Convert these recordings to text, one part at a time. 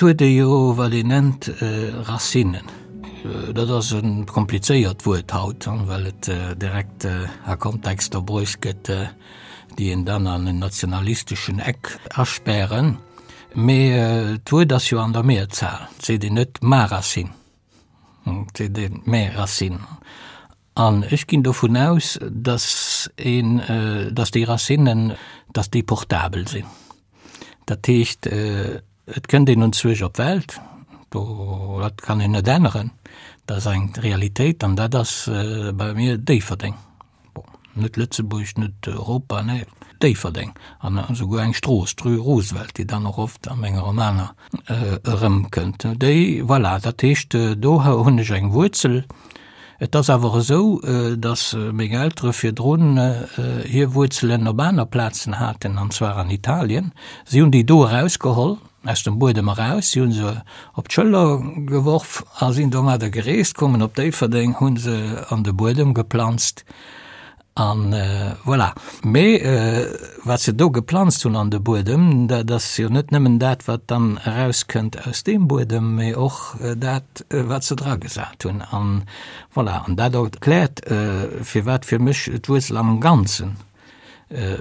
Et huet ee jo, wat een nennt, Racinen. Dat ass e komplizéiert Wuert haut, well et direkt a Kontexter bruecht gëtt, déi een dann an en nationalisteschen Eck aspären. Mee d'Wuert ass jo an der Mehrzahl. Et seet een net ma racine, et seet een mes racines. An ech ginn dovun aus, dass een, dass déi Racinen, dass déi portabel sinn. Dat heescht, et kënnt een unzwuesch op d'Welt, do, dat kann een net änneren, dat ass eng Realitéit an dat ass bei mir Déifferdeng. Bon, net Lëtzebuerg, net Europa, nee, Déifferdeng an esouguer eng Strooss, d'Rue Roosevelt, déi dann och oft a menge Romaner erëmkënnt. Déi, voilà, dat heescht, do hunn ech eng Wuerzel. Et ass awer esou, datt meng Eltere virdrun hir Wuerzelen op aner Plazen haten, an zwar an Italien. Si hunn déi do erausgeholl, aus dem Buedem eraus, si hu se op d'Schëller geworf a sinn domadder gereest, koumen op Déifferdeng, hu se an de Buedem geplanzt. An voilà. Mee wat se do geplanzt hunn an de Buedem, dat ass jo net nëmmen dat, wat dann erauskënnt aus deem Buedem, mee och dat, wat se dragesat hunn. An voilà, an dat erkläert, firwat fir mech d'Wuerzel am Ganzen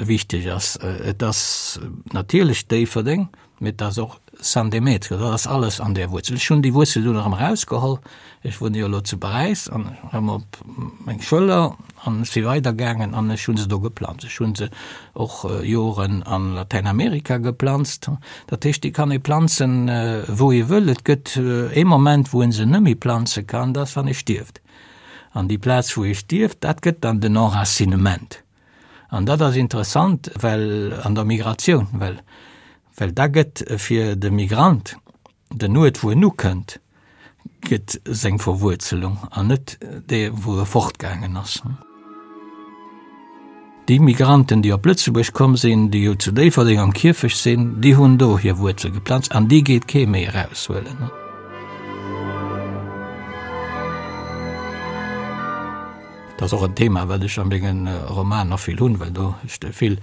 wichteg ass. Et ass natierlech Déifferdeng, Mee et ass och San Demetrio, dat ass alles an där Wuerzel. Ech hunn déi Wuerzel dunn erëm erausgeholl, ech wunne jo elo zu Paräis, an erëm op meng Schëller an ech si weidergaangen an ech hu se do geplanzt. Ech hu se och Joren a Latäinamerika geplanzt. Dat heescht, déi kann ee planzen, wou ee wëll. Et gëtt ee Moment, wou ee se net méi planze kann, dat ass, wann ee stierft. An déi Plaz, wou ee stierft, dat gëtt dann den Enracinement. An dat ass interessant, well an der Migratioun, well, well da gëtt fir de Migrant den Uert, wou en ukënnt, gëtt seng Verwuerzelung an net dee, wou e fortgaangen ass. Déi Migranten, déi op Lëtzebuerg komm sinn, déi jo zu Déifferdeng am Kierfecht sinn, déi hunn do hir Wuerzel geplanzt an déi geet kee méi eraushuelen. Dat ass och en Thema, wat ech a menge Romaner vill hunn, well do ech vill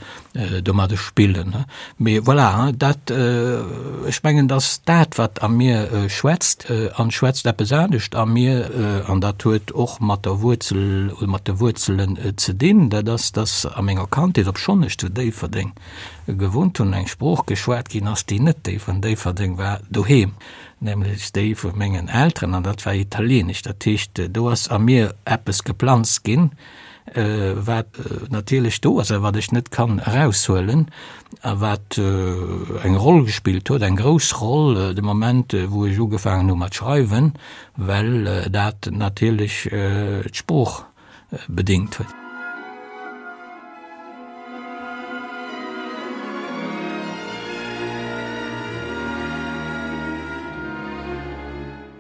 domadde spillen. Mee voilà, dat, ech mengen, datt dat, wat a mir schwätzt, an schwätzt eppes anescht a mir, an dat huet och mat der Wuerzel oder mat de Wuerzelen ze dinn, dat ass, datt a menger Kandheet, obschonn ech zu Déifferdeng gewunnt hunn, eng Sprooch geschwat ginn ass, déi net déi vun Déifferdeng war, doheem. nämlech déi vu mengen Elteren, an dat war Italieenesch. Dat heescht, do ass a mir eppes geplanzt ginn, wat natierlech do ass a wat ech net kann eraushuelen a wat eng Roll gespillt huet, eng grouss Roll de Moment, wou ech ugefaangen hu mat schreiwen, well dat natierlech d'Sprooch bedéngt huet.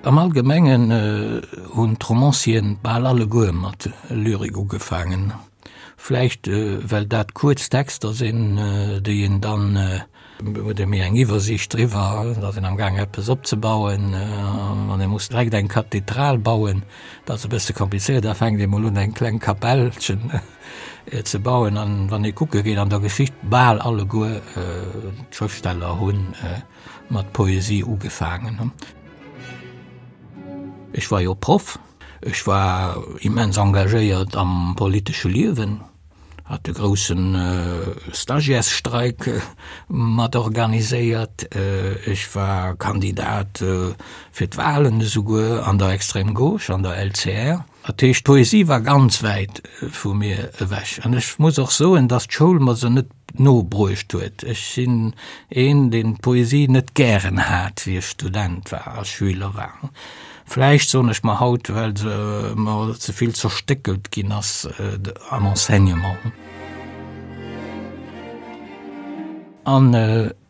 Am Allgemengen hunn d'Romancieren bal alleguer mat Lyrik ugefaangen, vläicht well dat kuerz Texter sinn, déi een dann Huet ee méi eng Iwwersiicht driwwer, et ass een am Gaang eppes opzebauen, wann ee muss direkt eng Kathedral bauen, dat ass e bësse komplizéiert, da fänkt ee mol un eng kleng Kapellchen ze bauen. An wann ee kucke geet an der Geschicht, bal alleguer d'Schrëftsteller hu mat Poesie ugefaangen. Ech war jo Proff, ech war immens engagéiert am politesche Liewen. Hat de grousse Stagiairesstreik mat organiséiert. Ech war Kandidat fir d'Wahlen esouguer an der Extrême Gauche, an der LCR. Dat heescht, d'Poesie war ganz wäit vu mir ewech. An ech muss och soen, datt d'Schoul mer se net no bruecht huet. Ech sinn een, deen d'Poesie net gären hat, wéi ech Student war a Schüler war. Vläicht, soen ech mer haut, well se mer ze vill zerstéckelt ginn ass am Enseignement. An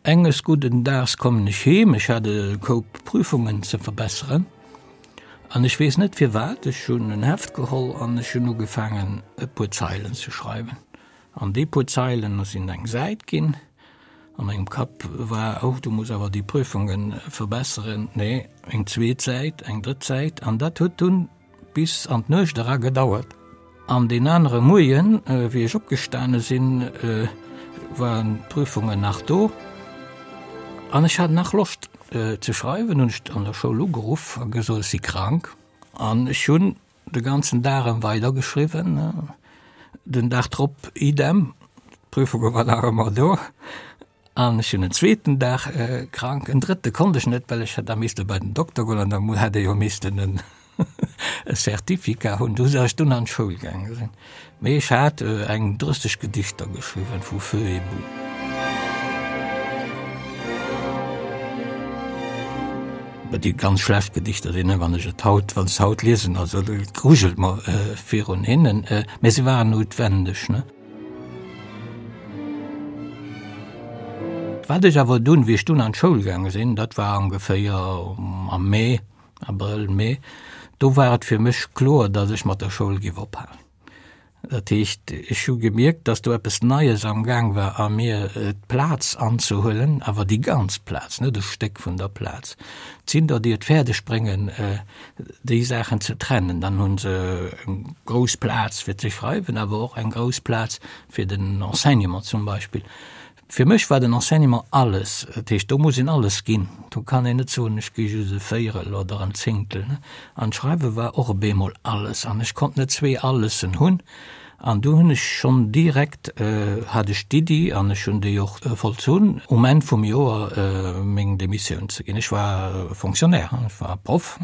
enges gudden Daags kommen ech heem, ech hat e Koup Prüfungen ze verbesseren an ech weess net firwat, ech hunn en Heft geholl an ech hunn ugefaangen e puer Zeilen ze schreiwen. An déi puer Zeilen sinn eng Säit ginn. A mengem Kapp war, Oh, du muss awer déi Prüfungen verbesseren. Nee, eng zweet Säit, eng drëtt Säit. An dat huet dunn bis an d'Nuecht era gedauert. An deen anere Moien, wéi ech opgestane sinn, waren d'Prüfungen nach do. An ech hat nach Loscht. ze schreiwen, hunn ech an der Schoul ugeruff a gesot, ech si krank. An ech hunn de ganzen Dag erëm weidergeschriwwen. Den Dag drop idem, d'Prüfunge war nach ëmmer do. An ech hunn en zweeten Dag krank, en drëtte konnt ech net, well ech hätt da misste bei den Dokter goen an da hätt e jo missten en e Certificat hunn. Du ech dunn an d'Schoul gaange sinn. Mee ech hat eng 30 Gedichter geschriwwen vu Feu et Boue. Déi ganz schlecht Gedichter sinn, wann ech et haut, wann ech se haut liesen, also et grujelt mer virun hinnen, mä se waren noutwendeg, ne. Wat ech awer dunn, wéi ech dunn an d'Schoul gaange sinn, dat war ongeféier am Mee, Abrëll, Mee, do war et fir mech kloer, datt ech mat der Schoul géif ophalen. Dat heescht, ech hu gemierkt, datt do eppes Neies am Gaang war a mir, d'Plaz anzehuelen, awer déi ganz Plaz, net e Stéck vun der Plaz. Et sinn der, déi et fäerdeg bréngen, déi Saachen ze trennen. Dann hu se eng grouss Plaz fir ze schreiwen, awer och eng grouss Plaz fir den Enseignement zum Beispill. Fir mech war den Enseignement alles. Dat heescht, do muss een alles ginn. Do kann een net soen, ech gi just e Véierel oder en Zéngtel. An d'Schreiwe war och op eemol alles. An ech konnt net zwee Allessen hunn. An du hunn ech schonn direkt, hat ech d'Iddi, an ech hunn déi och vollzunn, um Enn vum Joer meng Demissioun ze ginn. Ech war Fonctionnaire, ech war Proff,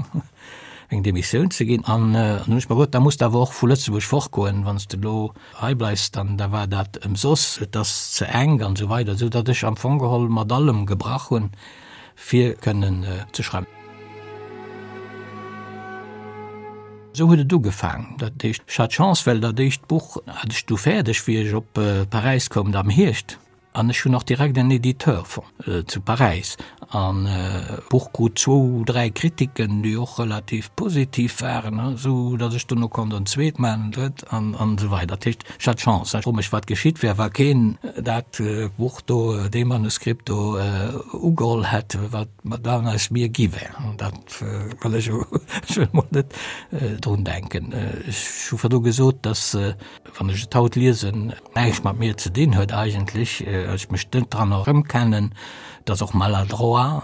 meng Demissioun ze ginn. An dann hunn ech mer gesot, da muss de awer och vu Lëtzebuerg fortgoen, wann s de elo hei bleifs, dann da war dat ëmsoss, et ass ze enk an esou weider, esou datt ech am Fong geholl mat allem gebrach hunn, fir kënnen ze schreiwen. Esou huet et ugefaang. Dat heescht, ech hat Chance, well dat éischt Buch hat ech du fäerdeg, wéi ech op Paräis koum, am Hierscht. An ech hunn och direkt en Editeur fonnt zu Paräis. An d'Buch krut zwou, dräi Kritiken, déi och relativ positiv waren, esou datt ech duerno konnt en zweet maachen, en drëtt an esou weider. Dat heescht, ech hat Chance. Ech froe mech, wat geschitt wär, wa keen dat Buch do, dee Manuskript do ugeholl hätt, wat dann aus mir gi wär. Dat Well ech ech wëll mol net drun denken. Ech hu virdu gesot, datt, wann ech et haut liesen, näischt mat mir ze dinn huet eigentlech, ech mech net dran erëmkennen, et ass och maladroit,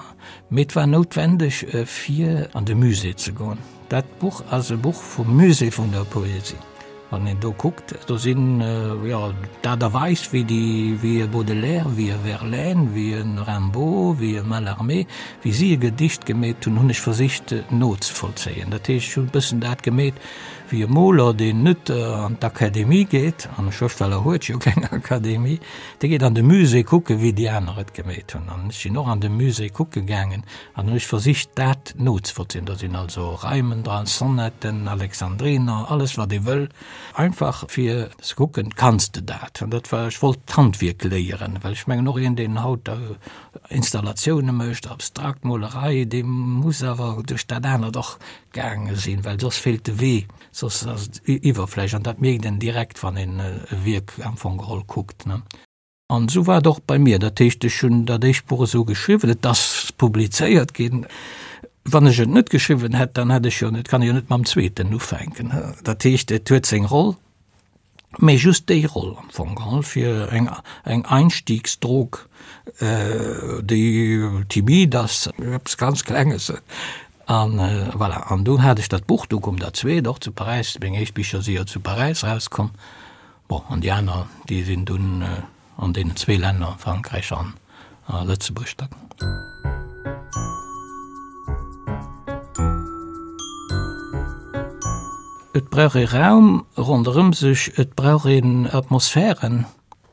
mee et war noutwendeg fir an de Musée ze goen. Dat Buch ass e Buch vum Musée vun der Poesie. Wann een do kuckt, do sinn, jo, d'Aart a Weis, wéi déi, wéi e Baudelaire, wéi e Verlaine, wéi e Rimbaud, wéi e Mallarmé, wéi si e Gedicht gemeet hunn, hunn ech versicht nozevollzéien. Dat heescht, ech hunn e bëssen dat gemeet wéi e Moler, deen net an d'Akademie geet, an e Schrëftsteller huet jo keng Akademie, dee geet an de Musée kucken, wéi déi aner et gemeet hunn. An ech sinn och an de Musée kucke gaangen An hunn ech versicht dat nozevollzéien. Do sinn also Reimen dran, Sonetten, Alexandriner, alles wat ee wëll, einfach fir ze kucken, kanns de dat? An dat war, ech wollt d'Handwierk léieren, well ech mengen och een deen haut Installatioune mécht, abstrakt Molerei, dee muss awer duerch dat anert och gaange sinn, well soss feelt de Wee, soss ass et Iwwerfläch an dat mierkt een direkt, wann een e Wierk am Fong geholl kuckt, ne. An esou war et och bei mir. Dat heescht, ech hunn dat éischt Buch esou geschriwwen, et ass publizéiert ginn. Wann ech et net geschriwwen hätt, dann hätt ech jo net, kann ech jo net mam zweeten ufänken. Dat heescht, et huet seng Roll, mee just déi Roll am Fong geholl, fir eng, eng Einstiegsdrog, déi timid ass, eppes ganz Klenges. An voilà, an du hat ech dat Buch, du koum dat zweet och zu Paräis, meng éischt Bicher si jo zu Paräis erauskomm. Bon, an déi aner, déi sinn dunn an deenen zwee Länner, Frankräich an a Lëtzebuerg da. Et brauch ee Raum ronderëm sech, et brauch een Atmosphären.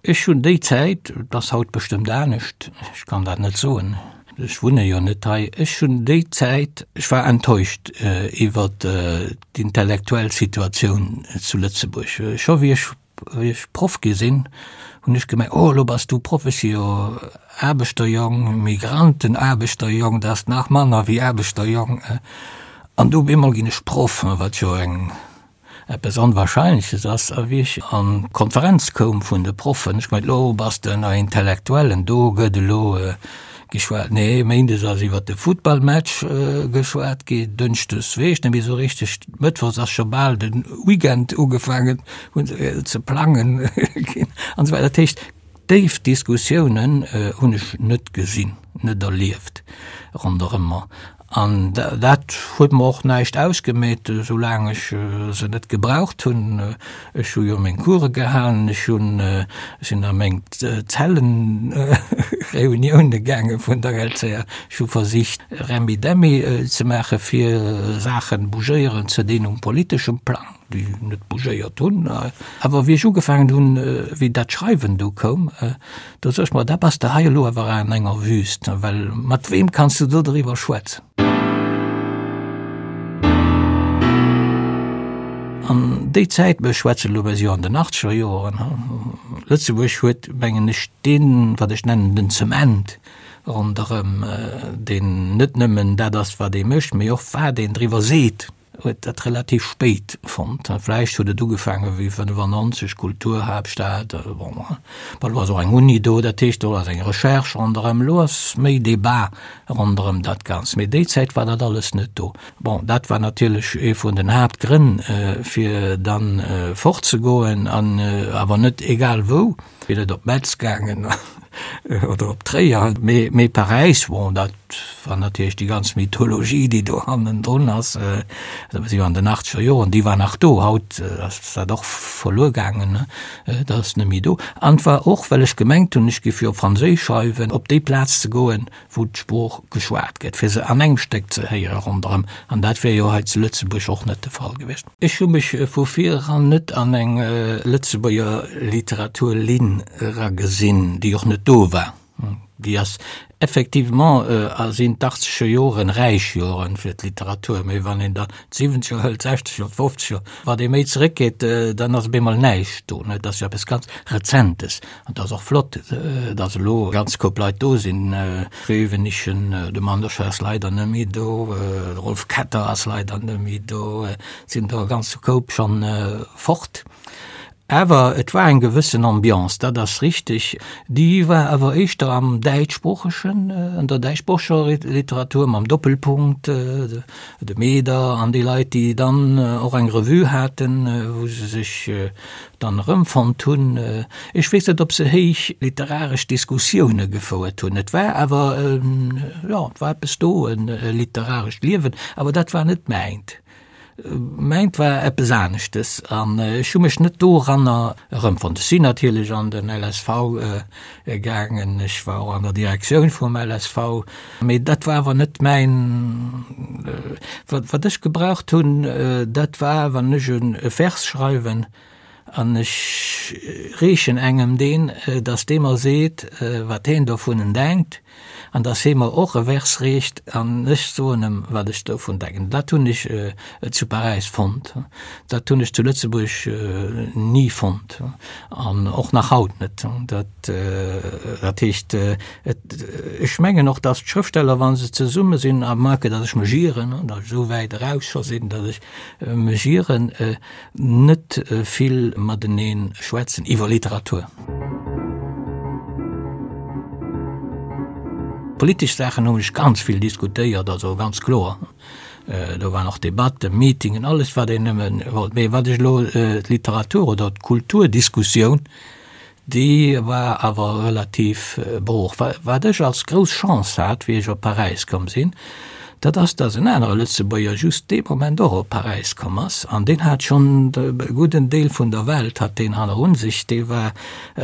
Ech hunn déi Zäit, et ass haut bestëmmt anescht, ech kann dat net soen, ech wunne jo net hei, ech hunn déi Zäit, ech war enttäuscht iwwer d'intellektuell Situatioun zu Lëtzebuerg. Scho wéi ech, wéi ech Proff gi sinn, hunn ech gemengt, oh elo bass du Proff, ech si jo Aarbechterjong, Migrantenaarbechterjong, dat ass nach manner wéi Aarbechterjong. An du op eemol ginn ech Proff, wat jo eng eppes Onwahrscheinleches ass, a wéi ech an d'Konferenz koum vun de Proffen, ech gemengt, lo bass de ënner Intellektuellen, do gëtt elo geschwat. Nee, méindes ass iwwer de Futtballmatch geschwat ginn, dënschdes weess ech net méi esou richteg, mëttwochs ass scho bal de Weekend ugefaangen hunn ze plangen ginn an esou weider. Dat heescht, déif Diskussiounen hunn ech net gesinn. net erlieft ronderëm mer. An dat huet mer och näischt ausgemeet, soulaang ech se net gebraucht hunn. Ech hu jo meng Course gehalen, ech hunn, sinn a meng Zellenreunioune gaange vun der LCA, ech hu versicht Remmi-Demmi ze maache fir Saachen bougéieren ze dinn um politeschem Plang, déi net bougéiert hunn. Awer wéi ech ugefaangen hunn, wéi dat Schreiwen du koum, Do sot ech mer, da bass de hei elo awer an enger Wüst, well mat weem kanns du do driwwer schwätzen? An déi Zäit, mir schwätzen elo, mir si jo an den achtzeger Joren, Lëtzebuerg huet, mengen ech, deen, wat ech nennen den Zement ronderëm, deen net nëmmen dat ass, wat ee mécht, mee och wat een driwwer seet. huet dat relativ spéit fonnt. Vläicht huet et ugefaange wéi 95, Kulturhaaptstad, bon, bon, elo ass och eng Uni do, dat heescht do ass eng Recherche ronderëm, elo ass méi Debat ronderëm dat Ganzt, mee déi Zäit war dat alles net do. Bon, dat war natierlech ee vun den Haaptgrënn, fir dann fortzegoen an awer net egal wou. Wier net op Metz gaangen oder op Tréier, mee, mee Paräis, bon, dat war natierlech déi ganz Mythologie, déi do hannendrun ass, dat si jo an den achtzeger Joren, déi war nach do. Haut ass dat och verluer gaangen, dat ass net méi do. An et war och, well ech gemengt hunn, ech géif jo op Franséisch schreiwen, op déi Plaz ze goen, wou d'Sprooch geschwat gëtt, fir se an engem Stéck ze héiere ronderëm. An dat wär jo hei zu Lëtzebuerg och net de Fall gewiescht. Ech hu mech vu vir eran net an eng Lëtzebuerger Literaturlinn eragesinn, déi och net do war. Déi ass effectivement, sinn d'Achtzeger Joren räich Joren fir d'Literatur, mee wann een dann d'Siwwenzeger hëlt, d'Sechzeger, d'Fofzeger, wat ee méi zeréckgeet, dann ass op eemol näischt do. Et ass jo eppes ganz Rezentes. An et ass och flott, datt elo e ganz Koup Leit do sinn, Grevenischen, de Manderscheid ass leider net méi do, de Rolf Ketter ass leider net méi do, et sinn der e ganze Koup schonn fort. Awer et war eng gewëssen Ambiance, dat ass richteg. Déi war awer éischter am däitschsproochegen, an der däitschsproocheger Literatur mam Doppelpunkt, de Meder an déi Leit, déi dann och eng Revue haten, wou se sech dann erëmfonnt hunn. Ech weess net, ob se héich literaresch Diskussioune gefouert hunn. Et war awer, jo, et war eppes do, e literarescht Liewen, awer dat war net mäint. Mäint war eppes aneschtes an ech hu mech net doranner erëmfonnt. Ech sinn natierlech an den LSV gaangen, ech war och an der Direktioun vum LSV, mee dat war awer net mäin, wat wat ech gebraucht hunn, dat war, wann ech e Vers schreiwen an ech reechen engem deen, datt dee mer seet, wat heen dovunnen denkt, an dass hee mer och e Vers reecht an ech soen em, wat ech dovun denken. Dat hunn ech zu Paräis fonnt, dat hunn ech zu Lëtzebuerg ni fonnt an och nach haut net. Dat, dat heescht, et, ech mengen och, dass d'Schrëftsteller, wa se zesumme sinn, à moins que dass ech mech ieren, dass ech esou wäit eraus scho sinn, dass ech mech ieren, net vill matenee schwätzen iwwer Literatur. Politesch Saachen hunn ech ganz vill diskutéiert, also ganz kloer. Do waren och Debatten, Meetingen, alles wat een nëmme wollt. Mee wat ech elo d'Literatur oder d'Kulturdiskussioun, Déi war awer relativ brooch. Wat ech als grouss Chance hat, wéi ech op Paräis komm sinn, dat ass, datt en anere Lëtzebuerger just dee Moment och op Paräis komm ass. An deen hat schonn e gudden Deel vun der Welt hat deen hannerun sech. Dee war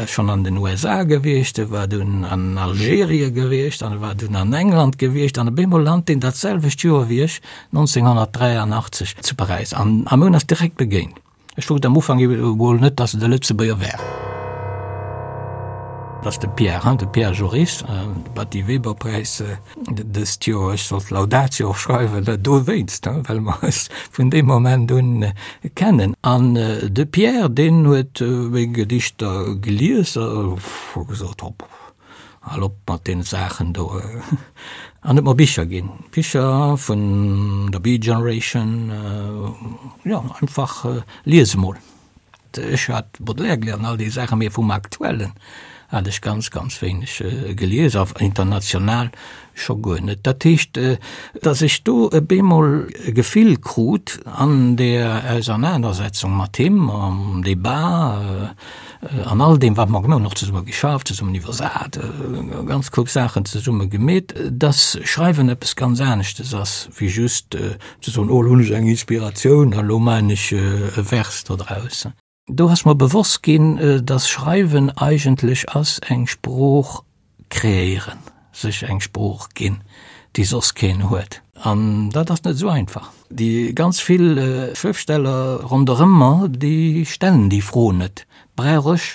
schonn an den USA gewiescht, e war dunn an Algerien gewiescht an e war dunn an England gewiescht. An op eemol lant deen dat selwecht Joer wéi ech, 1983, zu Paräis. An mir hunn eis direkt begéint. Ech wousst am Ufank emol net, dass et e Lëtzebuerger wär. Dat ass de Pierre, hein, de Pierre Joris, de Batty Weber-Präis dëst Joer. Ech sollt d'Laudatio och schreiwen, dowéinst, hein, well mer eis vun deem Moment un kennen. An de Pierre, deen huet meng Gedichter gelies a huet gesot, Hopp, Hal op mat deene Saachen do. An huet mer Bicher ginn, Bicher vun der Beat Generation, jo, einfach lies emol. Ech hat Baudelaire gelies an all déi Saachen, mee vum Aktuellen. Hat ech ganz, ganz wéineg gelies, a international scho guer net. Dat heescht, datt ech do e bemol e Gefill krut an där Ausernanersetzung mat him, am Debat, an all deem, wat mer gemaach hunn, och zesumme geschafft, zesummen iwwersat, ganz klug Saachen zesumme gemeet, datt Schreiwen eppes ganz aneschtes ass, wéi just ze soen, oh, elo hunn ech eng Inspiratioun an elo maachen ech e Vers dodraus. Do ass mer bewosst ginn, dass Schreiwen eigentlech ass eng Sprooch kreéieren, sech eng Sprooch ginn, déi soss keen huet. An dat ass net esou einfach. Déi ganz vill Schrëftsteller ronderëm mer, déi stellen déi Fro net, Brauch ech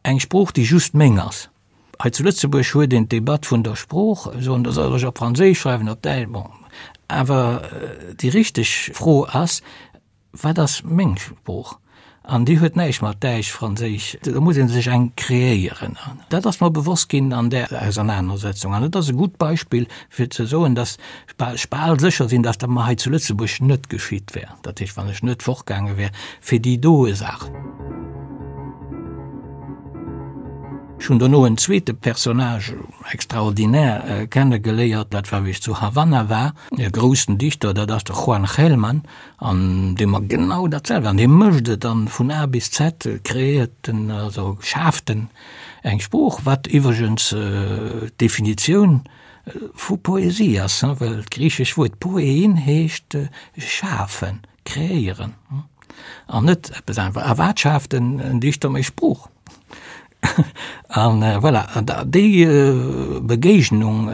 eng Sprooch, déi just meng ass? Hei zu Lëtzebuerg huet een d'Debatt vun der Sprooch, soen, da soll ech op Franséisch schreiwen, op Däitsch, bon. Awer déi richteg Fro ass, Wat ass meng Sprooch? An déi huet näischt mat Däitsch, Franséisch, do muss ee sech eng kreéieren. Dat ass mer bewosst ginn an där Ausernanersetzung. An et ass e gutt Beispill, fir ze soen, datt ech bal sécher sinn, datt dat mer hei zu Lëtzebuerg net geschitt wär, dat heescht, wann ech net fortgaange wär fir déi doe Saach. Ech hunn dono en zweete Personnage extraordinaire kennegeléiert, dat war wéi ech zu Havanna war, e groussen Dichter, dat ass de Juan Gelman. An dee mer genau dat selwecht, an dee mécht et an vun A bis Z kreéiert en, also schaaft en eng Sprooch, wat iwwregens d'Definitioun vu Poesie ass, well d'griichesch Wuert poiein heescht schafen, kreéieren an net eppes aneres. A wat schaaft en Dichter méi Sprooch? An voilà, an déi Begéignung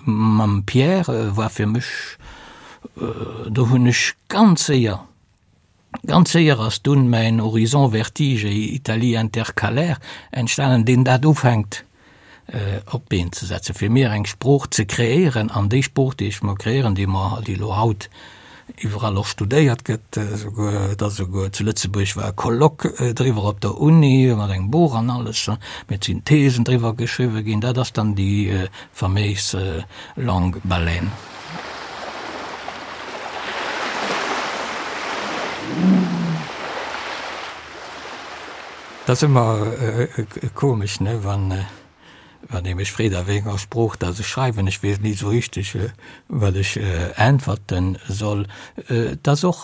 mam Pierre war fir mech, do hunn ech ganz séier, ganz séier ass dunn mäin Horizon Vertige et Italie intercalaire entstanen, deen dat ufänkt op d'Been ze setzen, fir mir eng Sprooch ze kreéieren. An déi Sprooch, déi ech mer kreéieren, déi mer, déi elo haut iwwerall och studéiert gëtt, esouguer, et ass esouguer zu Lëtzebuerg war e Colloque driwwer op der Uni mat engem Buch an alles, mee et sinn Thesen driwwer geschriwwe ginn, dat ass dann déi faméis Langue baleine. Dat ass ëmmer komesch, ne, wann Wann ee mech freet, a wéi enger Sprooch dass ech schreiwen, ech weess ni esou richteg, wat ech äntwerte soll. Et ass och,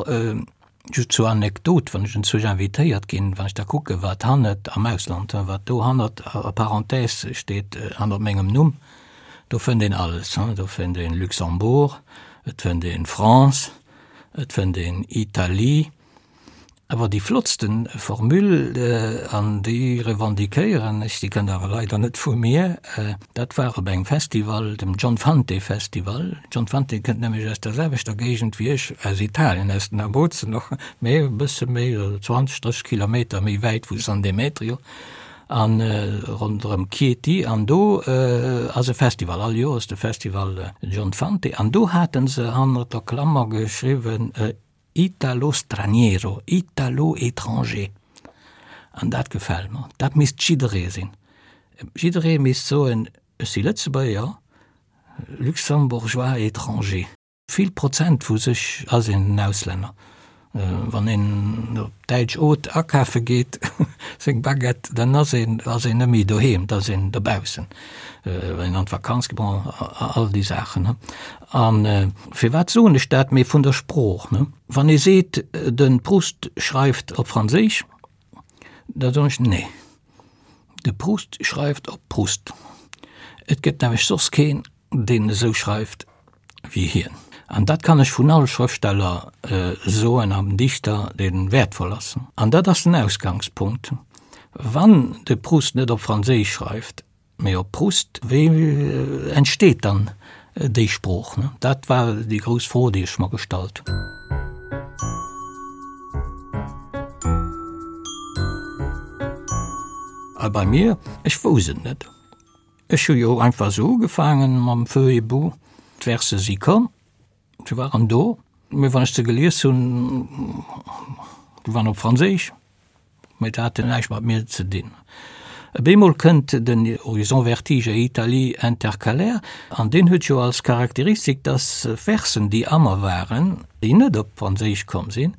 just zur Anekdot, wann ech enzwousch invitéiert ginn, wann ech da kucke wat hannert, am Ausland, wat do hannert a Parenthèse steet, hannert mengem Numm, do fënnt een alles, do fënnt een Luxembourg, et fënnt een France, et fënnt een Italie, Awer déi flottsten Formule, an déi revendiquéieren ech, déi kënnt awer leider net vu mir, dat war op engem Festival, dem John Fante Festival. John Fante kënnt nämlech aus der selwechter Géigend wéi ech, aus Italien, aus den Abruzzen och, mee e bësse méi, 20, 30 Kilometer méi wäit vu San Demetrio a ronderëm Chieti. An do ass e Festival, all Joer ass de Festival John Fante, an do hate se hannert der Klammer geschriwwen, Italo straniero, Italo étranger. An dat gefält mer. Dat misst jidderee sinn. Jidderee misst soen, ech si Lëtzebuerger, Luxembourgeois étranger. Vill Prozent vu sech ass een en Auslänner. Wann een op d'däitsch Haute akafe geet, seng Baguette, dann ass een ass een net méi doheem, da ass een dobaussen. Wann een an d'Vakanz geet, bon, all déi Saachen. A firwat soen ech dat? Mee vun der Sprooch, ne? Wann ee seet, de Proust schreift op Franséisch, da soen ech, nee, de Proust schreift op Proust. Et gëtt nämlech soss keen, deen esou schreift wéi hien. An dat kann ech vun all Schrëftsteller soen an Dichter, dee wäertvoll ass. An dat ass den Ausgangspunkt. Wann de Proust net op Franséisch schreift, Mee op Proust, wéi entsteet dann déi Sprooch? Dat war déi grouss Fro, déi ech mer gestallt hunn. A bei mir, ech wousst et net. Ech hu jo einfach esou ugefaangen mam Feu et boue. D'Verse si komm, se waren do, mee wann ech se gelies hunn, déi waren op Franséisch. Mee dat hat näischt mat mir ze dinn. Op eemol kënnt den Horizon Vertige et Italie intercalaire, an deen huet jo als Charakteristik, dass Versen, déi a mer waren, déi net op Franséisch komm sinn,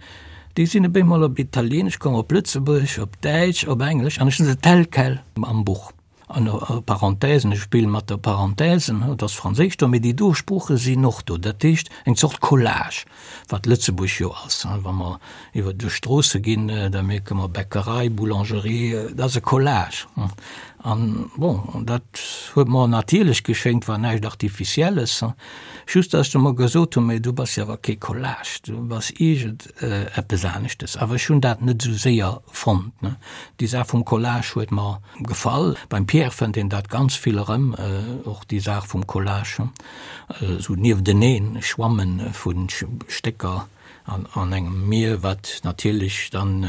déi sinn op eemol op Italieenesch komm, op Lëtzebuergesch, op Däitsch, op Englesch, an ech hunn se tel quel am Buch. An Parenthèsen, ech spille mat der Parenthèsen, et ass Franséisch do, mee déi do Sprooche sinn och do. Dat heescht eng Zort Collage, wat Lëtzebuerg jo ass. Wa mer iwwer duerch d'Stroosse ginn, da mierke mer Bäckerei, Boulangerie, dat ass e Collage. An bon, dat huet mer natierlech geschéngt, war näischt Artificielles. Just datt ech du mer gesot hunn, mee du bass jo awer kee Collage, du bass iergend eppes aneschtes. Awer ech hunn dat net esou séier fonnt. Déi Saach vum Collage huet mer gefall. Beim Pierre fënnt een dat ganz vill erëm, och déi Saach vum Collage, esou niefteneen schwamme vu Stécker an engem Mier, wat natierlech dann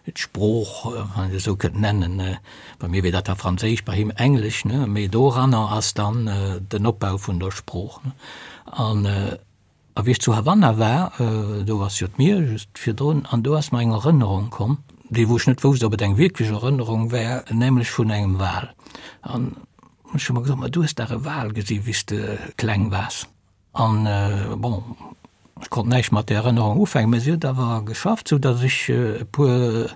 d'Sprooch, wann een et esou kënnt nennen, bei mir wier dat da Franséisch, bei him Englesch, mee doranner ass dann den Opbau vun der Sprooch. An A wéi ech zu Havanna war, do ass jo d'Mier just virdrun, an do ass mer eng Erënnerung komm, déi wou ech net wousst, ob et eng wierklech Erënnerung war, nämlech vun engem Wal. An ech hu mer gesot, ma du hues dach e Wal gesi wéi s de kleng waars. An bon, ech konnt näischt mat där Erënnerung ufänken, mä si huet awer geschafft, sou datt ech e puer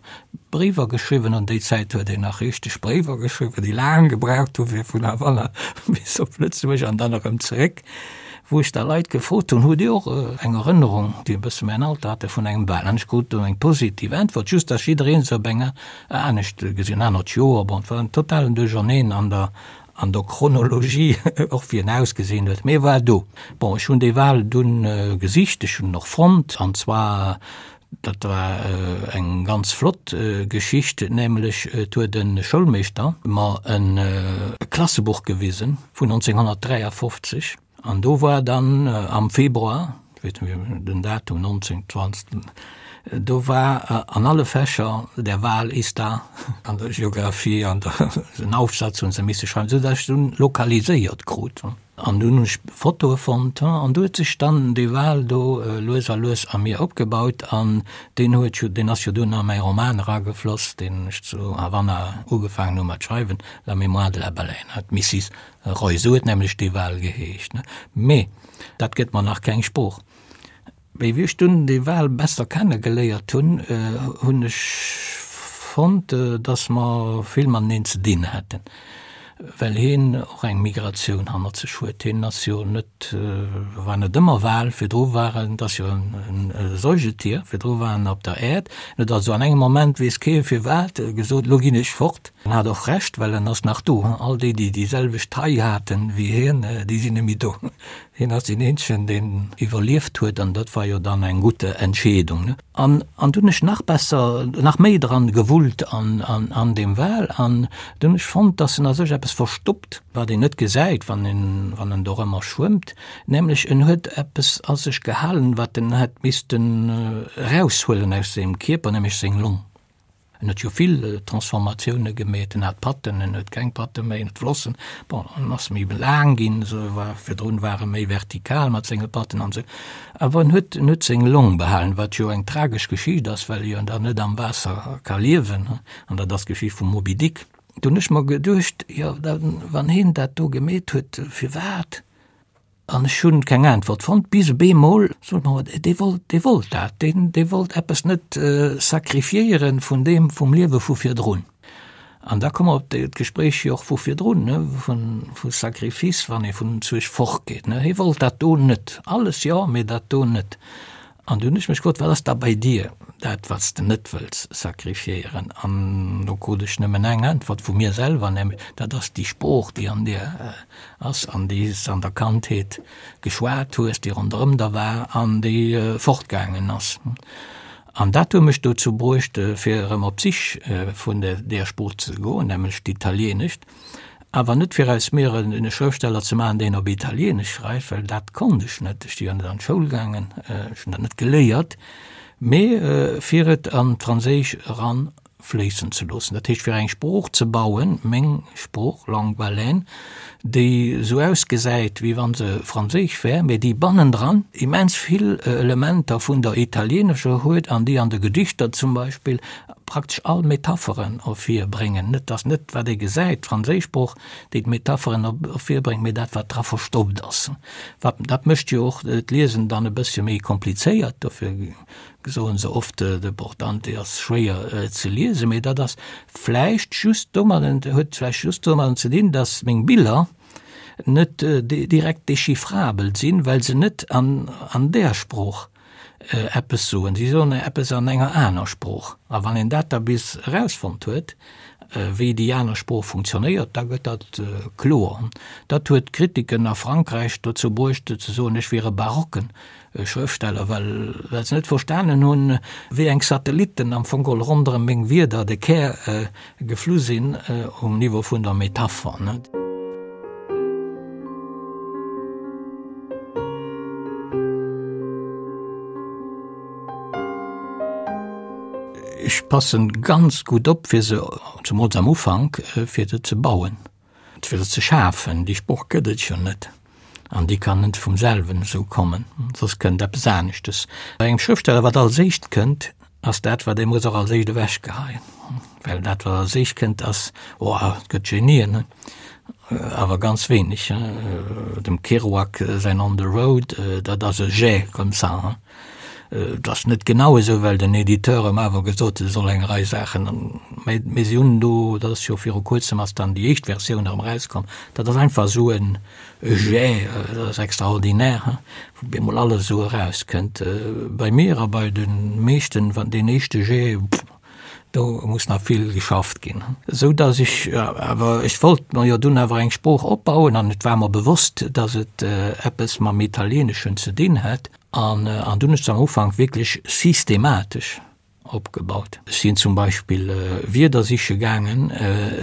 Bréiwer geschriwwen, an déi Zäit huet een nach richteg Bréiwer geschriwwen, déi laang gebraucht hu fir vun Havanna bis op Lëtzebuerg an dann erëm zeréck, wou ech da Leit gefrot hunn, Hutt Dir och eng Erënnerung, déi e bësse mäin Alter hate, vun engem Bal? An ech krut do eng positiv Äntwert, just datt jidderee se op eng anescht gesinn, en anert Joer, bon, et war en totalen Duercherneen an der an der Chronologie, och wéi en ausgesinn huet, mee e war do. Bon, ech hunn dee Wal dunn gesicht, ech hunn en och fonnt, an zwar Dat war eng ganz flott Geschicht, nämlech et huet e Schoulmeeschter mer e Klassebuch gewisen vun 1953 an do war dann am Februar, ech weess net méi den Datum, 1920, do war an alle Fächer der Wal ist da, an der Geographie an der, en Aufsatz hunn se misse schreiwen, esou datt ech dunn lokaliséiert krut. An dunn hunn ech Fotoe fonnt an do huet sech dann dee Wal do lues a lues a mir opgebaut an deen huet jo, deen ass jo dunn a mäi Roman eragefloss, deen ech zu Havanna ugefaangen hu mat schreiwen, La mémoire de la baleine, d'Missis Roy, esou huet nämlech dee Wal geheescht. Mee dat gëtt mer nach keng Sprooch. Mee wéi ech dunn dee Wal besser kenne geléiert hunn, hunn ech fonnt, dass mer vill mateneen ze dinn hätten, well hien och eng Migratioun hannert sech huet. Hien ass jo net, war net ëmmer Wal, virdru war en, et ass jo e Säugetier, virdru war en op der Äerd. En huet also an engem Moment, weess kee firwat, gesot, Lo ginn ech fort. En hat och Recht, well en ass nach do. All déi, déi déi selwecht Taille haten wéi hien, déi sinn net méi do. Hien ass deen eenzegen, deen iwwerlieft huet, an dat war jo dann eng gutt Entscheedung. An an dunn ech nach besser, nach méi dran gewullt an an an deem Wal, an dunn ech fonnt, dass en a sech eppes verstoppt, wat een net gesäit, wann en wann en dorëmmer schwëmmt, nämlech en huet eppes a sech gehalen, wat en hätt missten eraushuelen aus sengem Kierper, nämlech seng Long. En huet jo vill Transformatioune gemeet, en hat Patten, en huet keng Patte méi, en huet Flossen, bon, en ass méi laang ginn, esou war, virdrun war e méi vertikal mat senge Patten an esou. Awer en huet, en huet seng Long behalen, wat jo eng tragesch Geschicht ass, well e jo dann net am Waasser ka liewen, an dat ass d'Geschicht vum Moby Dick. Do hunn ech mer geduecht, jo, da wann hien dat do gemeet huet, firwat? An ech hunn keng Äntwert fonnt, bis op eemol sot mer, dee wollt, dee wollt dat, deen, dee wollt eppes net sacrifiéieren vun deem, vum Liewe vu virdrun. An da komme mer op d'Gespréich jo och vu virdrun, ne, vun, vu Sacrifice, wann ee vun Zueg fortgeet, ne. Hie wollt dat do net. Alles jo, mee dat do net. An du hunn ech mech gefrot, Wat ass da bei dir dat, wat s de net wëlls sacrifiéieren? An do krut ech nëmmen eng Äntwert vu mir selwer, nämlech, Dat ass déi Sprooch, déi an dir ass an déi s de an der Kandheet geschwat hues, déi ronderëm der war an déi fortgaangen ass. An dat huet mech dozou bruecht, fir erëm op d'Sich vun där Sprooch ze goen, nämlech d'Italieenescht. Awer net fir aus mir en Schrëftsteller ze maachen, deen op Italieenesch schreift, well dat konnt ech net, ech si jo net an d'Schoul gaangen, ech hunn dat net geléiert, mee fir et an d'Franséisch eranfléissen ze loossen. Dat heescht, fir eng Sprooch ze bauen, meng Sprooch, Langue baleine, déi esou ausgesäit, wéi wa se franséisch wär, mee déi bannendran immens vill Elementer vun der italieenescher huet an déi an de Gedichter zum Beispill. praktesch all Metapheren ervirbréngen. Net, dass net wat ee gesäit, d'franséisch Sprooch, déi d'Metapheren ervirbréngt, mee dat wat dra verstoppt ass. Wat, dat mécht jo och d'Liesen dann e bëssche méi komplizéiert, dofir soen se oft, de Portante ass schwéier ze liesen, mee dat ass vläicht just domadden, huet vläicht just domadden ze dinn, dass meng Biller net direkt dechiffrabel sinn, well se net an an där Sprooch eppes soen. Si soen eppes an enger aner Sprooch. A wann een dat da bis erausfonnt huet, wéi déi aner Sprooch funktionéiert, da gëtt dat kloer. Dat huet d'Kritiken a Frankräich dozou bruecht ze soen, ech wier e barocken Schrëftsteller, well well se net verstanen hunn, wéi eng Satellitten am Fong geholl ronderëm meng Wierder de Kär geflu sinn um Niveau vun der Metapher. Ech passen ganz gutt op, fir se, zemools am Ufank, fir se ze bauen, fir se ze schafen. Déi Sprooch gëtt et jo net an déi kann net vum selwen esou kommen, soss kënnt eppes aneschtes. Bei engem Schrëftsteller, wat als éischt kënnt, ass dat, wat ee muss och als éischt ewechgeheien. Well dat, wat als éischt kënnt, ass, oh, et gëtt Genien, awer ganz wéineg. Dem Kerouac säin On the Road, dat ass e Jet comme ça. Et ass net genau esou, well den Editeur em awer gesot huet, e soll eng Rei Saachen, mä mir si hunn do, dat ass jo viru kuerzem ass dann déi éischt Versioun erëm erauskomm, dat ass einfach esou e Jet, dat ass extraordinaire, wou bemol alles esou erauskënnt. Bei mir a bei de meeschten, wann deen éischte Jet, do muss nach vill geschafft ginn. Esou datt ech awer, ech wollt mer jo dunn awer eng Sprooch opbauen an et war mer bewosst, datt et eppes mam Italieeneschen ze dinn hätt. An an dunn hu ech se am Ufank wierklech systematesch opgebaut. Ech sinn zum Beispill Wierder siche gaangen,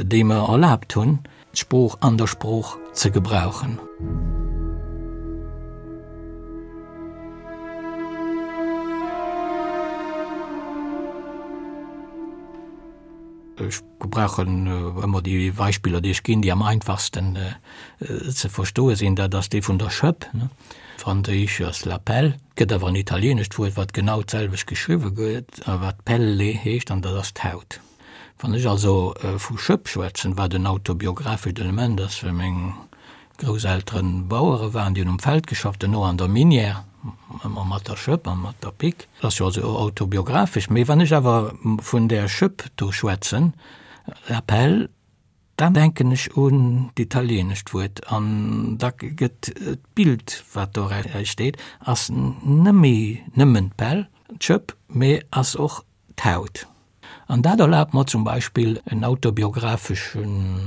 déi mer erlaabt hunn, d'Sprooch an der Sprooch ze gebrauchen. Ech gebrauchen ëmmer déi Beispiller, déi ech ginn, déi am einfachsten ze verstoe sinn. Dat ass dee vun der Schëpp, franséisch ass la pelle. Et gëtt awer en italieenescht Wuert, wat genau d'selwecht geschriwwe gëtt a wat pelle heescht, an dat ass d'Haut. Wann ech also vu Schëpp schwätzen, wat en autobiographescht Element ass, well meng Grousselteren Bauere waren, déi hunn um Feld geschafft, duerno an der Minière, ëmmer mat der Schëpp a mat der Pick. Dat ass jo also autobiographesch. Mee wann ech awer vun där Schëpp do schwätzen, la pelle, dann denken ech un d'italienescht Wuert an da gëtt d'Bild, wat do steet, ass nëmme nëmmen d'Pell, d'Schëpp, mee ass och d'Haut. An dat erlaabt mer zum Beispill en autobiographesche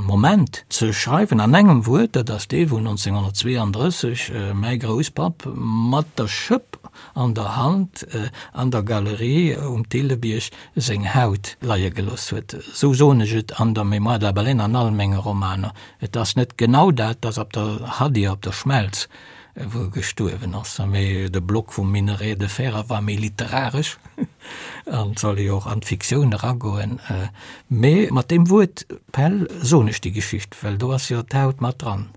Moment ze schreiwen an engem Wuert, dat ass dee wou 1932 mäi Grousspapp mat der Schëpp an der Hand an der Galerie um Thillebierg seng Haut leie gelooss huet. Esou soen ech et an der Mémoire de la baleine an all menge Romaner. Et ass net genau dat, et ass op der Hadir, op der Schmelz, wou e gestuerwen ass. Mee de Block vum Minerai de fer war méi literaresch an soll jo och an d'Fiktioun eragoen. Mee mat deem Wuert Pell soen ech déi Geschicht, well do ass jo d'Haut mat dran.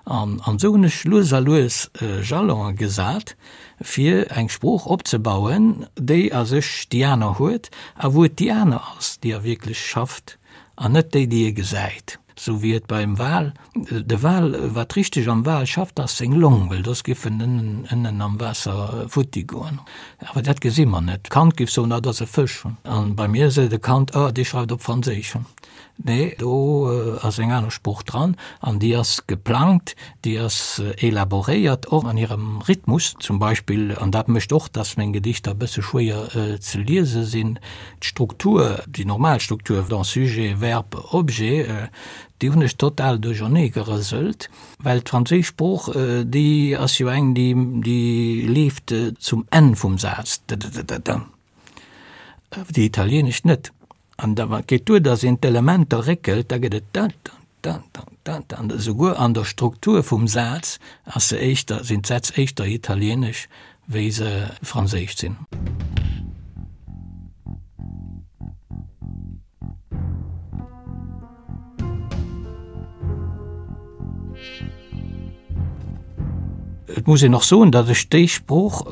An esou hunn ech lues a lues Jalone gesat, fir eng Sprooch opzebauen, déi a sech déi aner huet a wou et déi aner ass, déi a wierklech schafft an net déi, déi ee gesäit. Sou wéi et beim Wal, de Wal, wat richteg am Wal schafft, ass seng Long, well soss giff en ënnen am Waasser futti goen. Awer dat gesi mer net. D'Kand giff soen, ah, dat ass e Fësch. An bei mir seet e Kand, ah, dee schreift op Franséisch. Nee, do ass eng aner Sprooch dran an déi ass geplangt, déi ass elaboréiert, och an hirem Rhythmus zum Beispill. An dat mécht och, dass meng Gedichter e bësse schwéier ze liese sinn. D'Struktur, déi normal Struktur, donc Sujet, Verb, Objet, déi hunn ech total duerchernee gerëselt, well d'franséisch Sprooch, déi ass jo eng, déi, déi leeft zum Enn vum Saz, d-d-d-d-d, déi italieenesch net. An da geet duer, datt een d'Elementer réckelt, da gëtt et da-da-da-da-da-da. An esouguer an der Struktur vum Saz ass se éischter, sinn d'Sätz éischter italieenesch, wéi se franséisch sinn. muss een och soen, datt ech déi Sprooch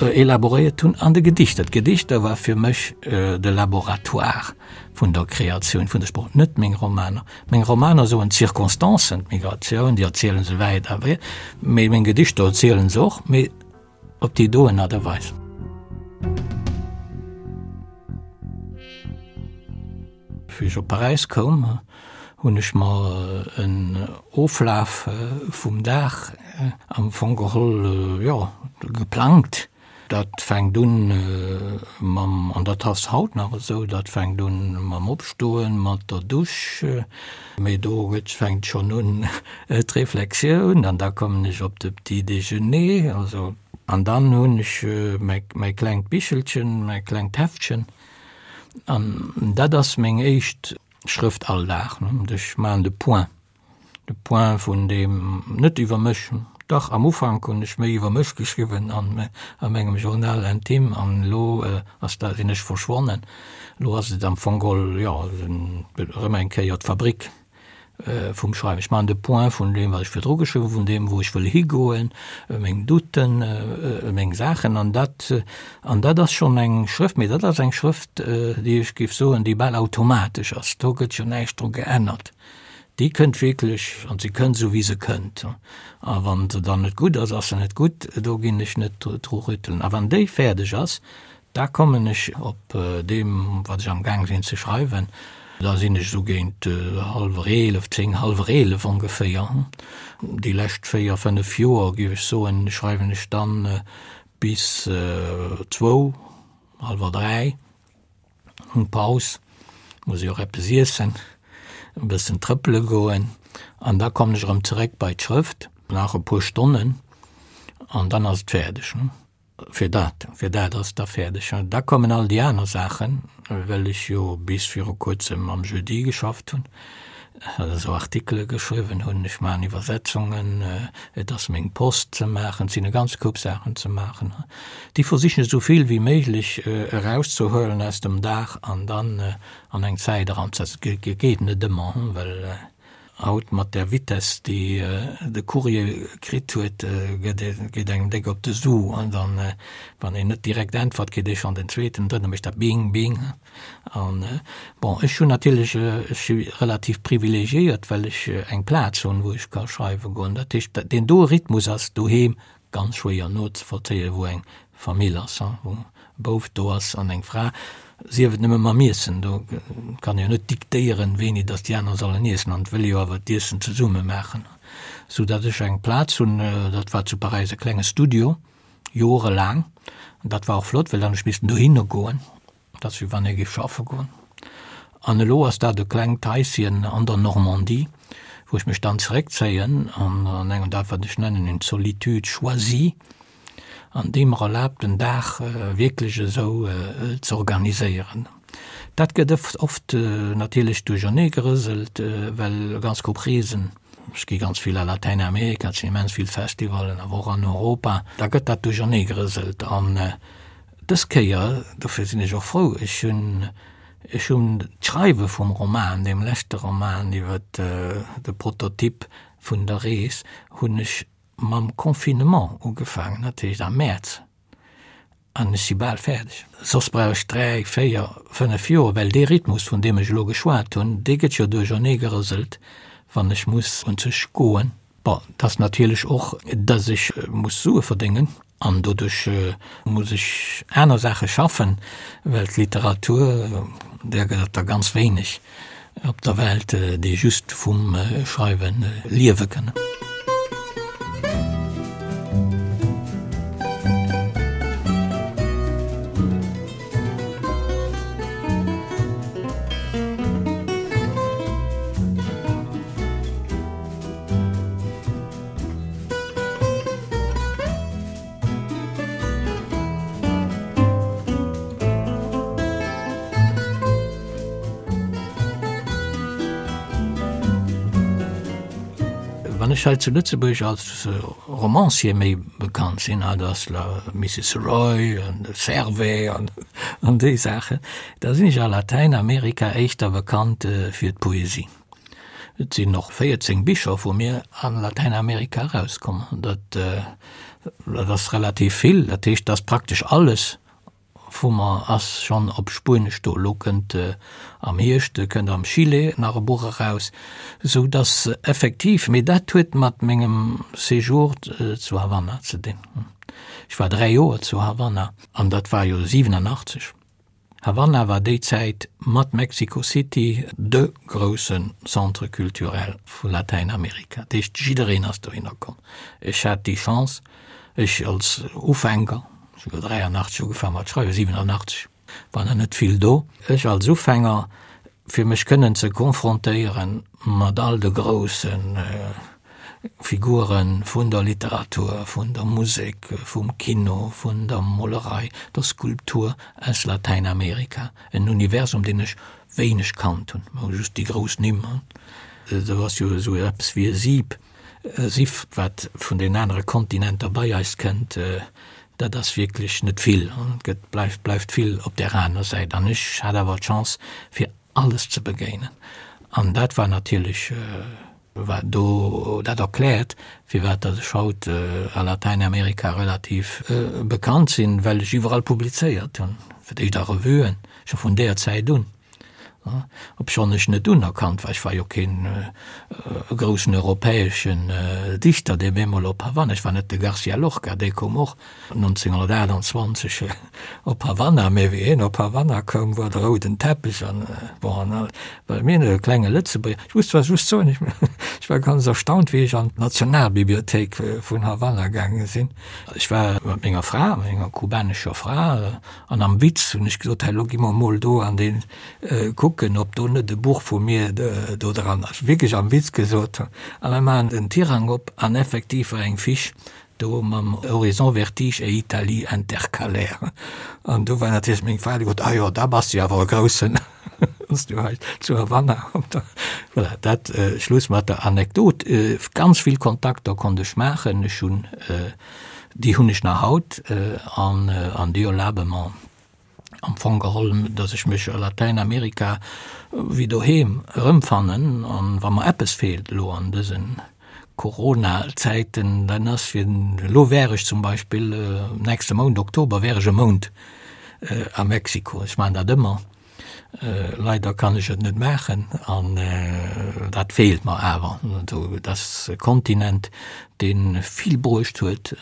elaboréiert hunn an de Gedichter. D'Gedichter war fir mech de Laboratoire vun der Kreatioun vun der Sprooch, net meng Romaner. Meng Romaner soen d'Circonstancen, d'Migratioun, déi erziele se wäit a breet, mee meng Gedichter erziele se och, mee op déi doen Aart a Weis. Wéi ech op Paräis koum, hunn ech mer en Oflaf vum Dag am Fong geholl, jo, geplangt. Dat fänkt un mam, an dat ass haut nach esou, dat fänkt un mam Opstoen, mat der Dusch, mee do gëtt, fänkt schonn un d'Reflexioun an da kommen ech op de Petit déjeuner, also, an dann hunn ech mäi, mäi klengt Bichelchen, mäi klengt Heftchen an dat ass meng éischt Schrëft all Dag, ech maachen de Point. De Point vun deem, net iwwer mech, dach am Ufank hunn ech méi iwwer mech geschriwwen an a mengem Journal intime an elo ass dat, sinn ech verschwonnen. Elo ass et am Fong geholl, jo, erëm eng Kéier d'Fabrik vum Schreiwen. Ech maachen de Point vun deem, wat ech virdru geschriwwen hunn, vun deem, wou ech wëll higoen, meng Douten, meng Saachen an dat, an dat ass schonn eng Schrëft, mee dat ass eng Schrëft, déi ech géif soen, déi bal automatesch ass. Do gëtt jo näischt dru geännert. Déi kënnt wierklech, an se kënnt esou wéi se kënnt. A wann se dann net gutt ass, ass se net gutt, do ginn ech net dru rüttelen. A wann déi fäerdeg ass, da kommen ech op deem, wat ech amgaang sinn ze schreiwen, da sinn ech esou géint hallwer 11, 10, hallwer 11 ongeféier. Déi lescht 4, 5 Joer, géif ech soen, schreiwen ech dann bis zwou, hallwer 3. Hunn Paus, muss ech och eppes iessen, e bëssen trëppele goen an da kommen ech erëm zeréck bei d'Schrëft, nach e puer Stonnen an dann ass et fäerdeg. Fir dat, fir dat ass et da fäerdeg. Da kommen all déi aner Saachen, well ech jo bis viru kuerzem am Jeudi geschafft hunn. esou Artikele geschriwwen hunn, ech maachen Iwwersetzungen, et ass meng Post ze maachen, et sinn e ganz Koup Saachen ze maachen. Déi versichen ech esou vill wéi méiglech erauszehuelen aus dem Dag an dann an eng Zäit eranzesetzen. Et geet net ëmmer, well haut mat där Vitesse, déi de Courrier kritt huet, geet engem déck op de Su an dann, wann een net direkt äntwert, kritt ee schonn den zweeten, drëtten, da mécht dat bing, bing. An, bon, ech hunn natierlech, ech si relativ privilegiéiert, well ech eng Plaz hunn, wou ech ka schreiwe goen. Dat heescht, deen doe Rhythmus ass doheem ganz schwéier nozevollzéien, wou eng Famill ass, wou e Bouf do ass an eng Fra, sief et nëmme mam Iessen. Do kann ee jo net diktéieren, wéini datt déi aner sollen iessen, an et wëll ee jo awer d'Iessen zesumme maachen. Soudatt ech eng Plaz hunn, dat war zu Paräis e klenge Studio, Jorelaang. An dat war och flott, well dann hu ech missten dohinner goen. Dat ass wéi wann ee géif schaffe goen. An elo ass dat e klengt Haischen an der Normandie, wou ech mech dann zeréckzéien an an engem dat wat ech nennen une solitude choisie, an déi mer erlaabt den Dag wierklech esou ze organiséieren. Dat gëtt oft natierlech duerchernee gerëselt, well e ganz Koup Reesen, ech gi ganz vill a Latäinamerika, et sinn immens vill Festivallen, awer och an Europa, da gëtt dat duerchernee gerëselt. An dës Kéier, dofir sinn ech och frou, ech hunn, ech hunn d'Schreiwe vum Roman, deem leschte Roman iwwer de Prototyp vun der Rees, hunn ech mam Confinement ugefaangen, dat heescht am Mäerz. An ech si bal fäerdeg. Soss brauch ech 3, 4, 5 Joer, well dee Rhythmus, vun deem ech elo geschwat hunn, dee gëtt jo duerchernee gerëselt, wann ech muss un sech goen. Bon, et ass natierlech och, dass ech muss Sue verdéngen an doduerch muss ech aner Saache schaffen, well d'Literatur, där gëtt et der ganz wéineg. Op der Welt, déi just vum Schreiwe liewe kënnen. Wann ech hei zu Lëtzebuerg als Romancier méi bekannt sinn, dat ass la Mrs. Roy an de Servais an an déi Saachen, da sinn ech a Latäinamerika éischter bekannt fir d'Poesie. Et sinn och 14 Bicher vu mir a Latäinamerika erauskomm. Dat. Dat ass relativ vill, dat heescht, dass praktesch alles vu mer ass schonn op Spuenesch do. Elo kënnt am Hierscht kënnt am Chile nach e Buch eraus, esou dass effektiv, mee dat huet mat mengem Séjour zu Havanna ze dinn. Ech war 3 Joer zu Havanna an dat war jo 87. Havanna war déi Zäit mat Mexico City de grousse Centre culturel vu Latäinamerika. Dat heescht, jiddereen ass dohinner komm. Ech hat déi Chance, ech als Ufänker, ech hu jo 83 ugefaangen mat schreiwen, 87 war nach net vill do, ech als Ufänger, fir mech kënnen ze confrontéiere mat all de grousse Figure vun der Literatur, vun der Musek, vum Kino, vun der Molerei, der Skulptur aus Latäinamerika, en Universum, deen ech wéineg kannt hunn, ma just déi grouss Nimm. Do ass jo esou eppes wéi e Sieb, e Siff, wat vun den anere Kontinenter bei eis kënnt, dat ass wierklech net vill, et gëtt, bleift, bleift vill op där aner Säit. An ech hat awer d'Chance, fir alles ze begéinen, an dat war natierlech. Wat do dat erkläert, firwat datt ech haut a Latäinamerika relativ bekannt sinn, well ech iwwerall publizéiert hunn, fir d'éischt a Revuen, scho vun deeër Zäit un, obschonn ech net unerkannt war. Ech war jo keen groussen europäeschen Dichter, dee bemol op Havanna, ech war net de Garcia Lorca, dee koum och 1928 op Havanna, mee wéi hien op Havanna koum, war de rouden Teppech an bon an all, well mir e klenge Lëtzebuerger, ech muss zwar just soen, ech ech war ganz erstaunt, wéi ech an d'Nationalbibliothéik vun Havanna gaange sinn. Ech war mat menger Fra, menger kubanescher Fra, an am Witz hunn ech gesot, hei lo gi mer mol do an dee kucken, ob do net e Buch vu mir do dran ass, wierklech am Witz gesot, a mir maachen den Tirang op an effektiv war eng Fiche Do mam Horizon Vertige et Italie intercalaire. An do war natierlech meng Fra, déi gesot, ah jo, da bass de jo awer e Groussen, wann s du hei zu Havanna op der. Voilà, dat Schluss mat der Anekdot. Ganz vill Kontakter konnt ech maachen. Ech hunn, déi hunn ech nach haut an an déi erlabe mer, am Fong geholl, datt ech mech a Latäinamerika wéi doheem erëmfannen. An wa mer eppes feelt elo an dëse Corona-Zäiten, dann ass fir, elo wär ech zum Beispill nächste Mount, Oktober, wär ech e Mount a Mexiko. Ech maachen dat ëmmer. Leider kann ech et net maachen an dat feelt mer awer. Dat ass e Kontinent, dee vill bruecht huet.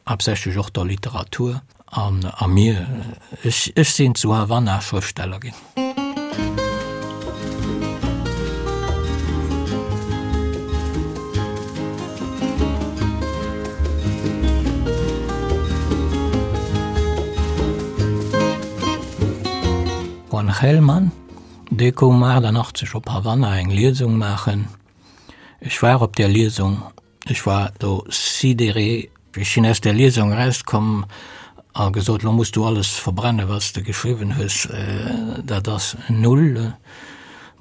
Haaptsächlech och der Literatur an a mir. Ech, ech sinn zu Havanna Schrëftsteller ginn. Juan Gelman, dee koum 88 op Havanna eng Liesung maachen. Ech war op där Liesung. Ech war do sidéré. Ech sinn aus där Liesung erauskomm a gesot, Lo muss du alles verbrennen, wat s de geschriwwen hues, dat ass null.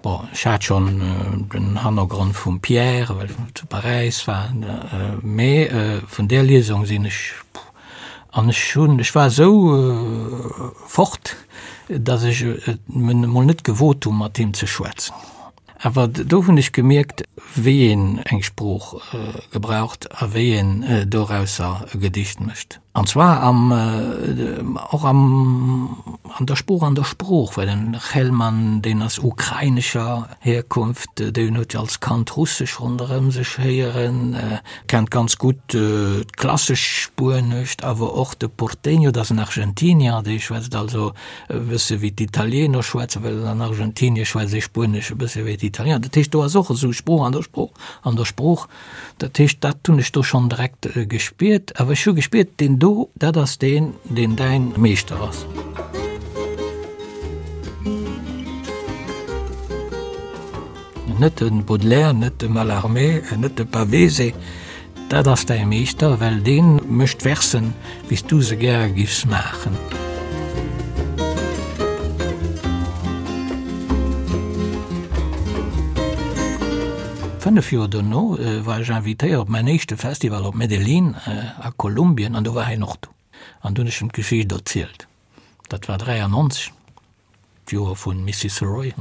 Bon, ech hat schonn den Hannergrond vum Pierre, well ech zu Paräis war, mee vun där Liesung sinn ech, an ech hunn, ech war esou fort, datt ech et emol net gewot hunn, mat him ze schwätzen. Awer do hunn ech gemierkt, wéi een eng Sprooch gebraucht a wéi een dorausser e Gedicht mécht. An zwar am, och am, an der Sprooch, an der Sprooch, well den Chelman, deen ass ukrainescher Herkunft, deen huet jo als Kand Russesch ronderëm sech héieren, kennt ganz gutt d'klassesch Spuenescht, awer och de Porteño, dat ass en Argentinier, dee schwätzt also e bësse wéi d'Italiener schwätzen, well an Argentinie schwätzt ee Spuenesch e bësse wéi d'Italiener. Dat heescht, do ass och esou Sprooch an der Sprooch an der Sprooch. Dat heescht, dat hunn ech do schonn direkt gespiert. Awer ech hu gespiert, deen do, dat ass deen, deen däin Meeschter ass. Net de Baudelaire, net de Mallarmé, net de Pavese. Dat ass däi Meeschter, well dee mécht Versen, wéi s du se gäre giffs maachen. Fënnef Joer dono war ech invitéiert op mäin éischte Festival op Medellín a Kolumbien an do war hien och do. An do hunn ech em d'Geschicht erzielt. Dat war 93. D'Joer vun Missus Roy.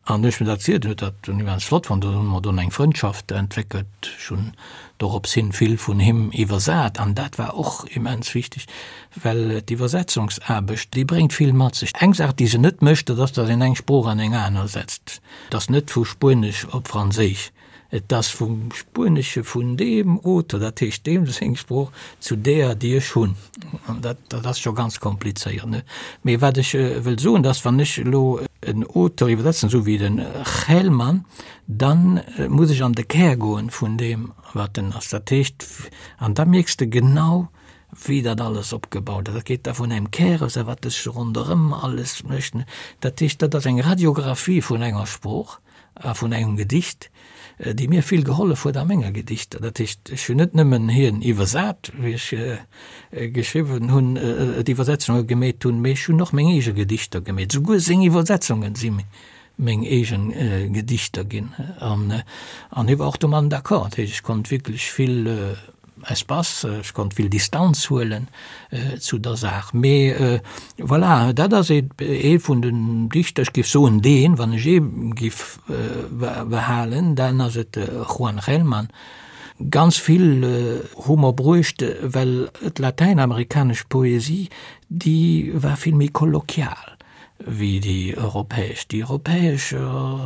An hu ech mir dat zielt, en huet dat immens flott fonnt, do hu mer dunn eng Frëndschaft entwéckelt. Ech hunn dorops hin vill vun him iwwersat an dat war och immens wichteg, well d'Iwwersetzungsaarbecht, déi bréngt vill mat sech. Eng Saach, déi se net mécht, dat ass, datt een eng Sprooch an eng aner setzt. Et ass net vu Spuenesch op Franséisch, et ass vum Spuenesche vun deem Auteur, dat heescht deem seng Sprooch, zu deeër, déi ech hunn. An dat, dat ass scho ganz komplizéiert, ne? Mee wat ech wëll soen, dass wann ech elo en Auteur iwwersetzen, esou wéi de Gelman, dann muss ech an de Kär goen vun deem, wat en ass. Dat heescht, an da mierks de genau, wéi dat alles opgebaut ass. Dat geet da vun engem Kär aus a wat sech ronderëm alles mécht. Dat heescht, dat ass eng Radiographie vun enger Sprooch a vun engem Gedicht, déi mir vill gehollef huet a menge Gedichter. Dat heescht, ech hunn net nëmmen hien iwwersat, wéi ech geschriwwen hunn, d'Iwwersetzunge gemeet hunn, mee ech hunn och meng eege Gedichter gemeet. Souguer seng Iwwersetzunge si meng eege Gedichter ginn. An hie war och domadden d'accord. Dat heescht, ech konnt wierklech vill Espace, ech konnt vill Distanz huelen zu der Saach. Mee voilà, dat ass ee vun den Dichter, ech géif soen deen, wann ech ee géif behalen, dann ass et de Juan Gelman. Ganz vill hu mer bruecht, well d'latäinamerikanesch Poesie, déi war vill méi kolloquial. wéi déi europäesch. Déi europäesch,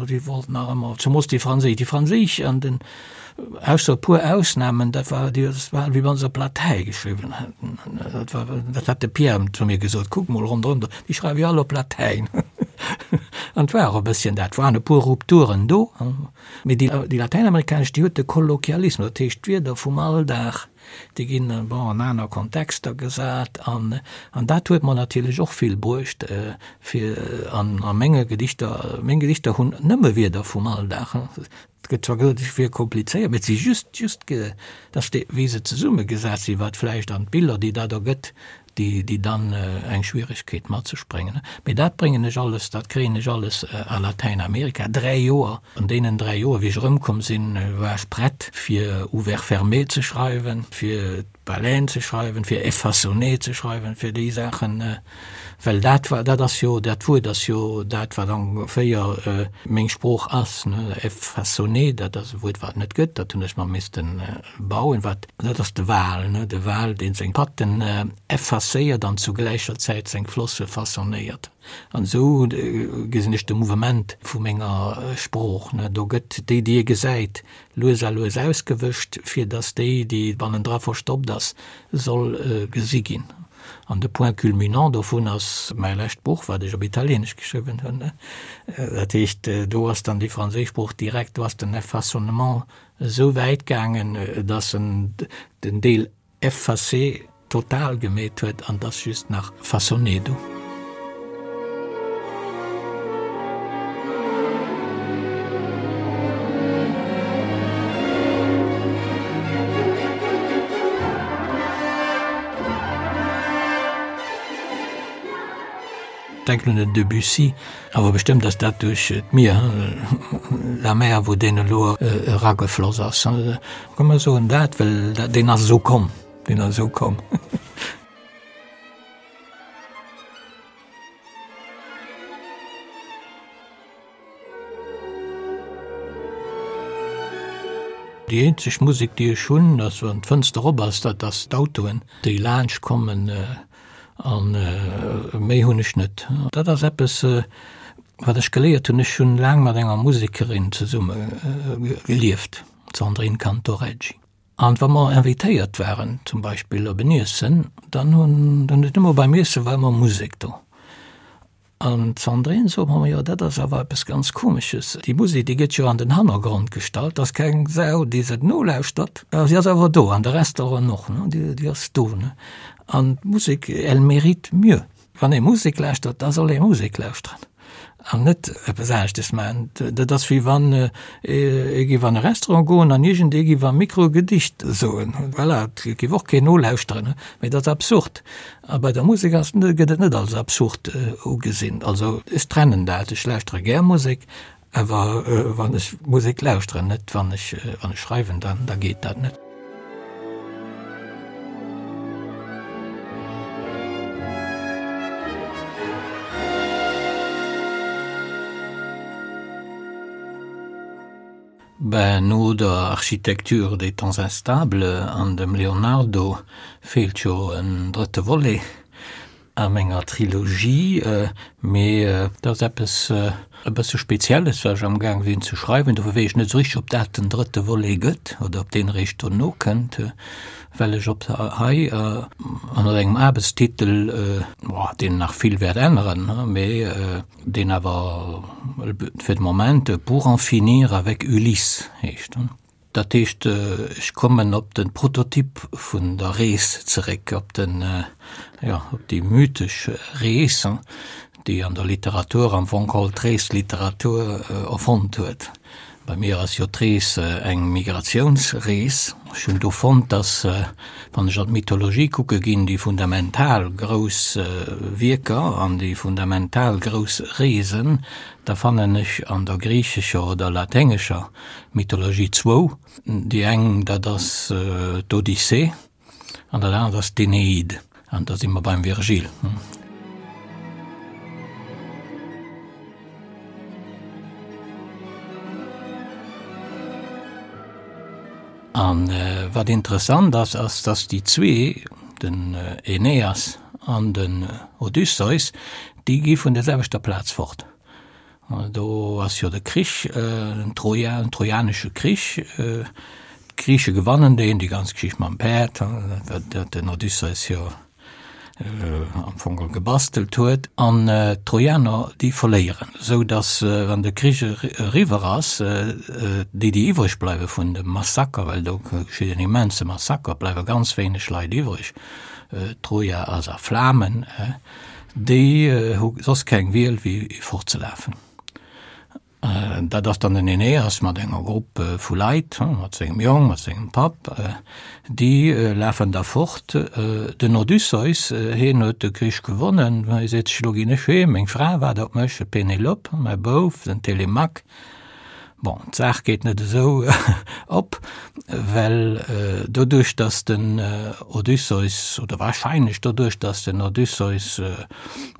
déi wollten nach ëmmer, zemoos déi franséisch, déi franséisch an den, ausser e puer Ausnahmen, dat war, déi, dat war wéi wa se op Latäi geschriwwen hätten. Dat war, dat hat de Pierre zu mir gesot, kuck mol ronderëm do, déi schreiwe jo all op Latäin. An et war och e bësschen dat, waren e puer Rupturen do, mee déi, déi latäinamerikanesch, déi huet de Kolloquialismus, dat heescht d'Wierder vum Alldag, Déi ginn, bon, an aner Kontexter gesat an, an dat huet mer natierlech och vill bruecht, fir an a menge Gedichter, meng Gedichter hunn nëmme Wierder vum Alldag. Et gëtt zwar gesot, ech wier komplizéiert, mee et si just, just, dass déi, wéi se zesummegesat sinn, wat vläicht an d'Biller, déi dat ergëtt, déi, déi dann eng Schwieregkeet mat sech bréngen. Mee dat bréngen ech alles, dat kréien ech alles a Latäinamerika. 3 Joer, an deenen 3 Joer, wéi ech erëmkomm sinn, war ech prett fir Ouvert fermé ze schreiwen, fir d'Baleine ze schreiwen, fir Effaçonné ze schreiwen, fir déi Saachen, well dat war, dat ass jo, dat Wuert ass jo dat, wat ongeféier meng Sprooch ass, ne, Effaçonné, dat ass e Wuert, wat et net gëtt, dat hunn ech mer missten Bauen, wat, dat ass de Wal, ne, de Wal, dee seng Patten effacéiert an zu gläicher Zäit seng Flosse façonnéiert. An esou gesinn ech de Mouvement vu menger Sprooch, ne. Do gëtt déi, déi ee gesäit, lues a lues ausgewëscht, fir datt déi, déi bannendra verstoppt ass, soll gesi ginn. An de Point culminant dovun ass mäi lescht Buch, wat ech op Italieenesch geschriwwen hunn, ne. Dat heescht, do ass dann déi franséisch Sprooch direkt, do ass den Effaçonnement Esou wäit gaangen, dass en den Deel effacé total gemeet huet an dass just nach façonné do. Denken un den Debussy, awer bestëmmt ass dat duerch d'Mier, la mer, wou deen elo eragefloss ass. Komm mer soen dat, well deen ass esou komm, deen ass esou komm. Déi eenzeg Musek, déi ech hunn, ass wann d'Fënster op ass, dat ass d'Autoen, déi laanscht kommen. An méi hunn ech net. Dat ass eppes, wat ech geléiert hunn. Ech hunn laang mat enger Musekerin zesumme gelieft, d'Sandrine Cantoreggi. An wa mer invitéiert waren, zum Beispill op en Iessen, dann hunn, dann huet ëmmer beim Iesse war ëmmer Musek do. An d'Sandrine sot mer, Jo, dat ass awer eppes ganz Komesches, déi Musek, déi gëtt jo an den Hannergrond gestallt, ass keng Sau, déi se nolauschtert, a si ass awer do, an de Restaurant och, ne, déi ass do, ne. An d'Musek, elle mérite mieux. Wann ee Musek lauschtert, da soll ee Musek lauschteren an net eppes aneschtes maachen. Dat ass wéi wann ee géif an e Restaurant goen an iergendee géif am Mikro e Gedicht soen. Voilà, et géif och keen nolauschteren, mee dat ass absurd. A bei der Musek ass gëtt et net als absurd ugesinn. Also ech trennen dat, ech lauschtere gär Musek, awer wann ech Musek lauschteren, net wann ech wann ech schreiwen, dann da geet dat net. Ben, no der Architecture des temps instables an dem Leonardo feelt jo en drëtte Volet a menger Trilogie. Mee dat ass eppes e bësse Spezielles, wat ech amgaang sinn ze schreiwen. Dofir weess ech net esou richteg, ob dat den drëtte Volet gëtt oder ob deen eréischt dono kënnt, well ech op hei ënner engem Aarbechtstitel, deen nach vill wäert änneren, mee deen awer fir de Moment Pour en finir avec Ulysse heescht. Dat heescht, ech kommen op de Prototyp vun der Rees zeréck, op den, jo, op déi mythesch Rees, déi an der Literatur am Fong geholl d'Reesliteratur erfonnt huet. Bei mir ass jo d'Rees eng Migratiounsrees. Ech hunn do fonnt, dass, wann ech an d'Mythologie kucke ginn, déi fundamental grouss Wierker an déi fundamental grouss Reesen, da fannen ech an der griichescher oder laténgescher Mythologie zwou. Déi eng, dat ass d'Odyssee An dat anert ass d'Eneid, an da si mer beim Virgil. A wat interessant ass, ass, datt déi zwee, den Aeneas an den Odysseus, déi gi vun der selwechter Plaz fort. Do ass jo de Krich, den Troja, den trojanesche Krich. D'Griiche gewannen deen, déi ganz Geschicht mam Päerd, dat den Odysseus jo am Fong geholl gebastelt huet. An d'Trojaner, déi verléieren, esou datt, wann de Krich eriwwer ass, déi, déi iwwreg bleiwe vun dem Massaker, well do geschitt en immense Massaker, bleiwe ganz wéineg Leit iwwreg, Troja ass a Flamen. Déi hu soss keng Wiel wéi fortzelafen. Dat ass dann den Aeneas mat enger Grupp vu Leit, mat sengem Jong, mat sengem Papp, déi lafen da fort. Den Odysseus, hien huet de Krich gewonnen, hie seet sech, Elo ginn ech heem, meng Fra waart op mech, d'Penelope, mäi Bouf, den Telemaque. Bon, d'Saach geet net esou op, well doduerch, datt den Odysseus, oder wahrscheinlech doduerch, datt den Odysseus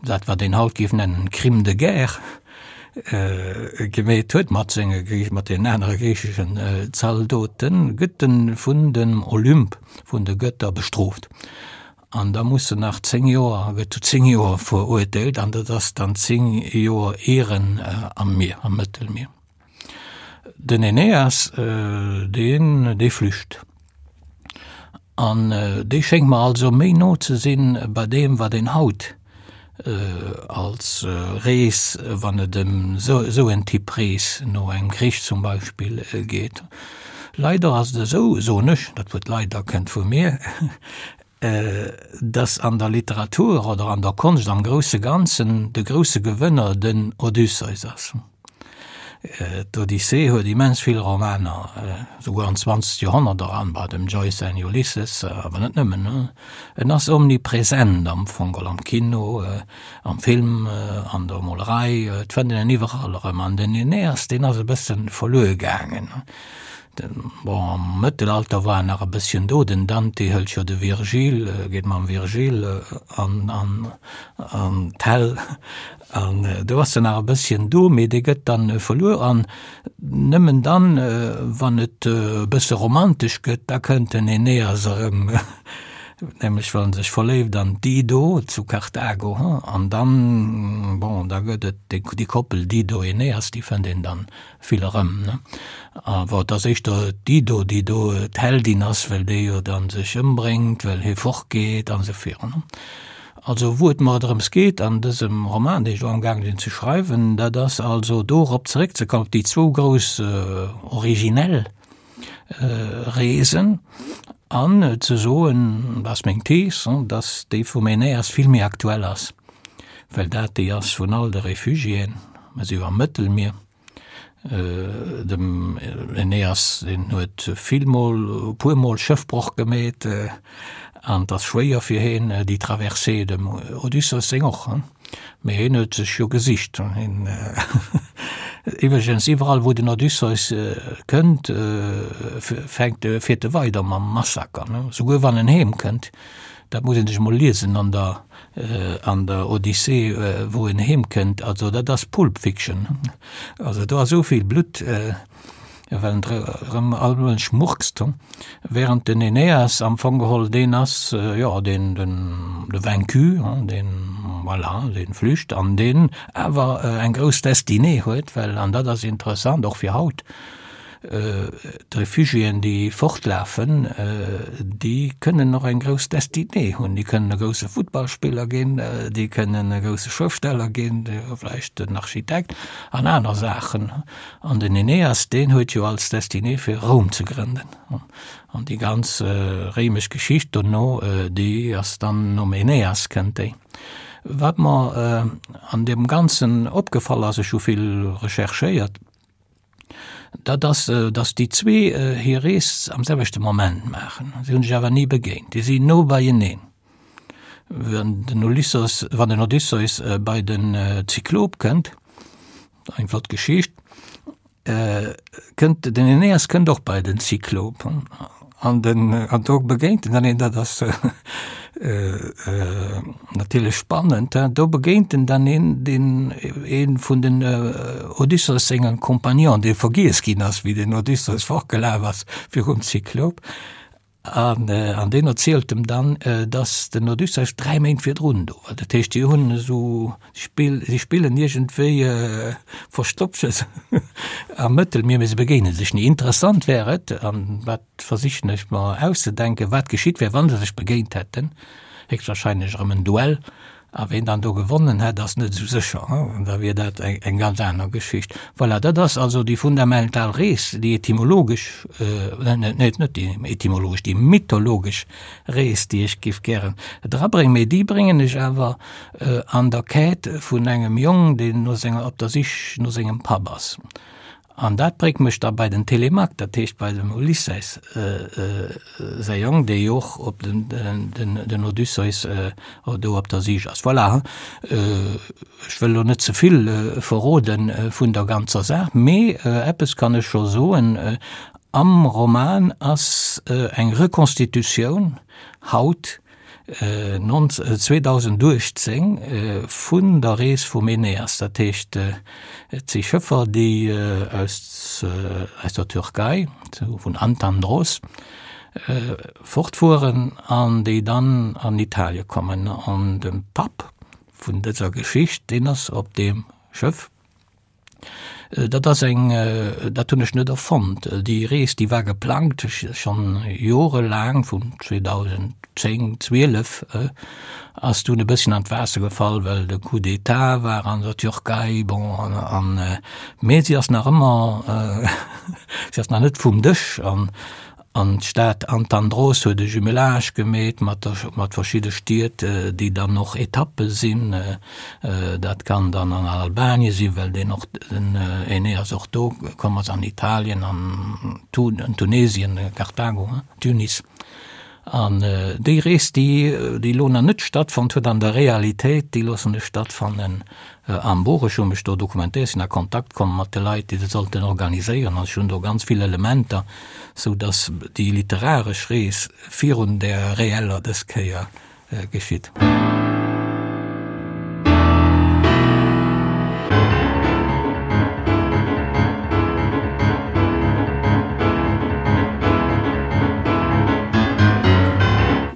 dat, wat een haut géif nennen, Crime de guerre gemeet huet mat senge, mat deenen anere griicheschen Zaldoten, gëtt en vun dem Olymp, vun de Gëtter bestrooft. An da muss en nach 10 Joer, gëtt zu 10 Joer verurteelt an dat ass dann 10 Joer Ieren am Mier, am Mëttelmier. Den Aeneas, deen, dee flücht. An dee schéngt mer also méi no ze sinn bei deem, wat een haut als Rees, wann et ëm esou en Typ Rees no engem Krich zum Beispill geet. Leider ass et esou, soen ech, dat Wuert leider kënnt vu mir, dass an der Literatur oder an der Konscht am grousse Ganzen de grousse Gewënner den Odysseus ass. D'Odyssee huet immens vill Romaner, souguer an d'zwanzegt Joerhonnert eran, bei dem Joyce säin Ulysses, awer net nëmmen. En ass omnipresent am Fong, am Kino, am Film, an der Molerei, et fënnt een en iwwerall erëm. An den Aeneas, deen ass e bësse verluer gaangen. Bon, am Mëttelalter war en nach e bësschen do, den Dante hëlt jo de Virgil, geet mam Virgil an, an, an d'Hell, an do ass en nach e bësschen do, mee dee gëtt dann verluer an nëmmen dann, wann et e bësse romantesch gëtt, da kënnt den Aeneas erëm, nämlech wann en sech verléift an d'Dido zu Karthago, an dann, bon, da gëtt et déi Koppel Dido-Aeneas, déi fënnt een dann vill erëm, ne? Awer et ass éischter d'Dido, déi do d'Heldin ass, well déi jo dann sech ëmbréngt, well hie fortgeet an esou virun. Also wou et mer drëms geet an dësem Roman, deen ech elo amgaange sinn ze schreiwen, dat ass also dorop zeréckzekommen, op déi zwou grouss originell Reesen an ze soen, dat ass meng Thees, dass déi vum Aeneas vill méi aktuell ass, well dat déi ass vun all de Refugiéen, mer si jo am Mëttelmier, Dem Aeneas, deen huet vill mol, e puer mol Schëffbroch gemeet an et ass schwéier fir hien déi Traversée, dem Odysseus seng och, mee hien huet sech jo gesicht. Hien iwwregens iwwerall wou den Odysseus kënnt, fänkt, fiert e weider mam Massaker, souguer wann en heem kënnt, dat muss een sech mol liesen an der an der Odyssee, wou en heem kënnt, also dat ass Pulp Fiction, also do ass esou vill Blutt. Well en erëm all Mënsch murkst, während den Aeneas am Fong geholl deen ass, jo, deen, den, de Vaincu, deen, voilà, deen flücht an deen awer eng grouss Destinée huet, well, an dat ass interessant och fir haut, D'Refugiéen, déi fortlafen, déi kënnen och eng grouss Destinée hunn. Déi kënnen e grousse Futtballspiller ginn, déi kënnen e grousse Schrëftsteller ginn, vläicht en Architekt an aner Saachen. An den Aeneas, deen huet jo als Destinée fir Roum ze grënnen. An déi ganz réimesch Geschicht dono, déi ass dann nom Aeneas kënnt déi. Wat mer an deem Ganzen opgefall ass, ech hu vill recherchéiert, Dat ass, datt déi zwee hir Rees am selwechte Moment maachen. Si hunn sech awer ni begéint. Déi sinn no beieneen. Wann den Ulysses, wann den Odysseus bei den Zyklop kënnt, eng flott Geschicht, kënnt den Aeneas kënnt och bei den Zyklop. An den, an do begéint en dann een, dat ass natierlech spannend, do begéint en dann een, deen ee vun den Odysseus senge Compagnon, dee vergiess ginn ass, wéi den Odysseus fortgelaf ass virum Zyklop. An, an deen erzielt em dann, datt den Odysseus 3 Méint virdrun do war. Dat heescht, déi hunn esou Spill, si spillen iergendwéi Verstoppches am Mëttelmier, mee se begéine sech ni. Interessant wär et, an dat versichen ech mer auszedenken, wat geschitt wär, wa se sech begéint hätten. Héchstwahrscheinlech erëm en Duell. A ween dann do gewonnen hätt, ass net esou sécher. Da wier dat eng ganz aner Geschicht. Voilà, dat ass also déi fundamental Rees, déi etymologesch, net net déi etymologesch, déi mythologesch Rees, déi ech géif gären drabréngen. Mee déi bréngen ech awer an der Quête vun engem Jong, deen no senger, op der Sich no sengem Papp ass. An dat bréngt mech da bei den Télémaque, dat heescht bei dem Ulysses säi Jong, dee jo och op den, den, den Odysseus do op der Sich ass. Voilà, ech wëll elo net ze vill verrode vun der ganzer Saach, mee eppes kann ech scho soen, Am Roman ass eng Reconstitutioun haut 2018 vun der Rees vum Aeneas, dat heescht et si Schëffer déi aus aus der Türkei, vun Antandros fortfueren an déi dann an Italie kommen. An de Papp vun dëser Geschicht, deen ass op deem Schëff. Dat ass eng, dat hunn ech net erfonnt. Déi Rees, déi war geplangt schonn jorelaang, vun 2010, 12, ass dunn e bësschen an d'Waasser gefall, well de Coup d'État war an der Türkei, bon, an, an, mee si ass nach ëmmer, si ass nach net vum Dësch an An d'Stad Antandros huet e Jumelage gemeet mat der, mat verschidde Stied, déi dann och Etappe sinn. Dat kann dann an Albanien sinn, well deen och, den Aeneas och do komm ass, an Italien, an Tunesien, Karthago, Tunis. An déi Rees, déi, déi elo nach net stattfonnt huet an der Realitéit, déi loossen ech stattfannen am Buch. Ech hu mech do dokumentéiert, sinn a Kontakt komm mat de Leit, déi dat sollten organiséieren an ech hunn do ganz vill Elementer, sou datt déi literaresch Rees virun där reeller dës Kéier geschitt.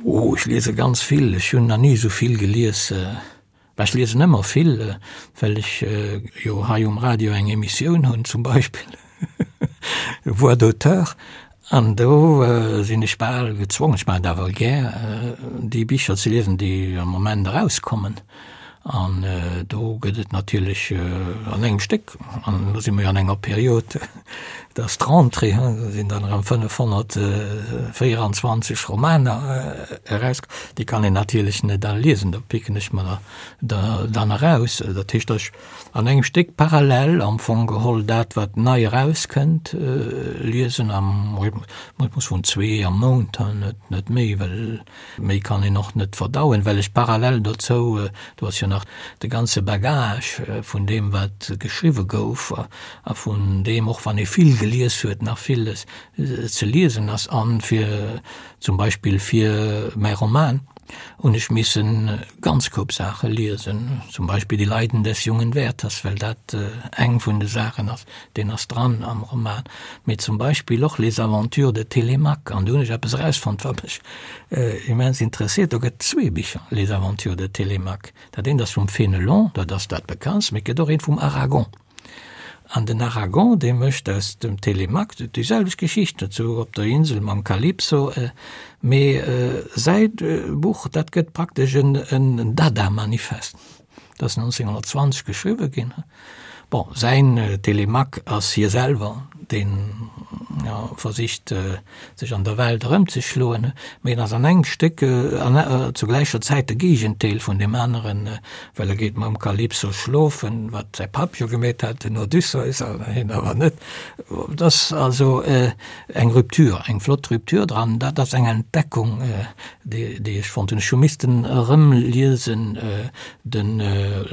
Oh, ech liese ganz vill. Ech hunn nach ni esou vill gelies. Bah, ech liesen ëmmer vill, well ech jo hei um Radio eng Emissioun hunn zum Beispill, Voix d'auteur, an do sinn ech bal gezwongen, ech maachen et awer gär, déi Bicher ze liesen, déi am Moment erauskommen. An do gëtt et natierlech an engem Stéck, an elo si mer jo an enger Period, et ass d'Rentrée, do sinn dann erëm 524 Romaner eraus, déi kann een natierlech net all liesen, do picken ech mer der dann eraus. Dat heescht, datt ech an engem Stéck parallel am Fong geholl dat, wat nei erauskënnt, liesen, am Rhythmus vun zwee am Mount, net méi, well Méi kann een och net verdauen, well ech parallel dozou, do ass jo nach de ganze Bagage vun deem, wat geschriwwe gouf a vun deem, och wann ee vill gelies huet, nach villes ze liesen ass. An fir zum Beispill fir mäi Roman. Hunn ech missen ganz Koup Saache liesen, zum Beispill Die Leiden des jungen Werthers, well dat eng vun de Saachen ass, deen ass dran am Roman, mee zum Beispill och Les aventures de Télémaque, an do hunn ech eppes erausfonnt, wat mech immens interesséiert, do gëtt zwee Bicher, Les aventures de Télémaque, dat eent ass vum Fénelon, dat ass dat bekanntst, mee et gëtt och eent vum Aragon. An den Aragon, dee mécht aus dem Télémaque déi selwecht Geschicht, sou op der Insel mam Calypso, mee säi Buch, dat gëtt praktesch en Dada-Manifest. Dat ass 1920 geschriwwe ginn. Bon, säin Télémaque ass hie selwer, deen versicht, sech an der Welt erëmzeschloen, mee en ass an engem Stéck an zu gläicher Zäit de Géigendeel vun deem aneren, well e geet mam Kalypso schlofen, wat säi Papp jo gemeet hat, den Odysseus, an hien awer net. Et ass also eng Rupture, eng flott Rupture dran. Dat ass eng Entdeckung, déi ech fonnt hunn. Ech hu missten erëmliesen den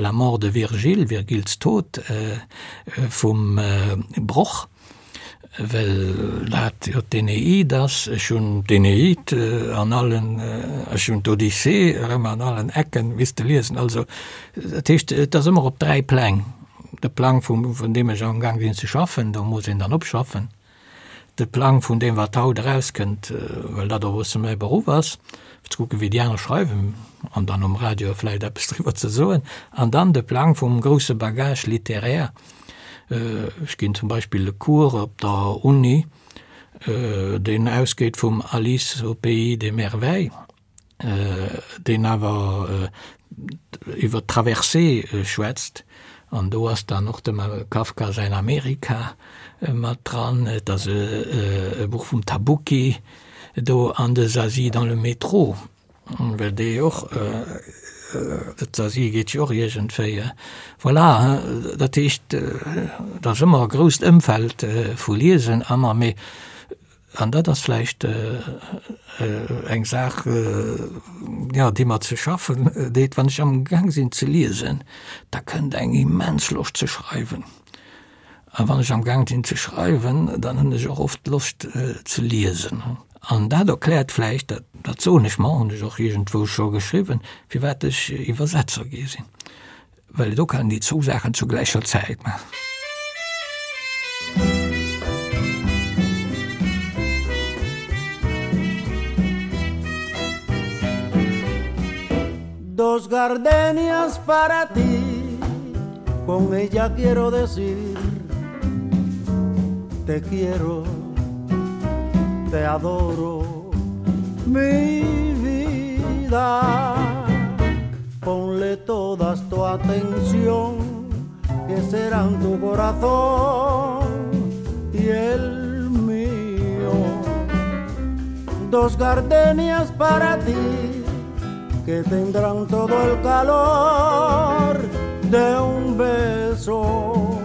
La mort de Virgile, Virgils Tod vum Broch. Well dat jo d'Eneid ass. Ech hunn d'Eneid an allen, ech hunn d'Odyssee erëm an allen Ecken misste liesen. Also dat heescht, et ass ëmmer op 3 Pläng. De Plang vum, vun deem ech amgaang sinn ze schaffen, do muss een dann opschaffen. De Plang vun deem, wat haut erauskënnt, well dat och e bësse mäi Beruff ass, fir ze kucken, wéi déi aner schreiwen an dann um Radio vläicht eppes driwwer ze soen. An dann de Plang vum grousse Bagage littéraire, Ech ginn zum Beispill e Cours op der Uni, deen ausgeet vum Alice au pays des merveilles, deen awer iwwer d'Traversée schwätzt. An do ass dann och dem Kafka säin Amerika mat dran. Et ass e Buch vum Tabucchi do an de Zazie dans le métro. Well dee och, d'Asie geet jo och iergendwéi, voilà, dat heescht, et ass ëmmer e grousst Ëmfeld vu Liesen ëmmer, mee, an dat ass vläicht eng Saach, jo, déi mer ze schaffen deet, wann ech amgaang sinn ze liesen, da kënnt eng immens Loscht ze schreiwen. A wann ech am Gaang sinn ze schreiwen, dann hunn ech och oft Loscht ze liesen. An dat erkläert vläicht, dat dat soen ech mer, hunn ech och iergendwou scho geschriwwen, firwat ech Iwwersetzer gi sinn, well do kann een déi zwou Saachen zu gläicher Zäit maachen. Dos gardenias para ti Con ella quiero decir Te quiero Te adoro Mi vida Ponle todas tu atención Que serán tu corazón Y el mío Dos gardenias para ti Que tendrán todo el calor de un beso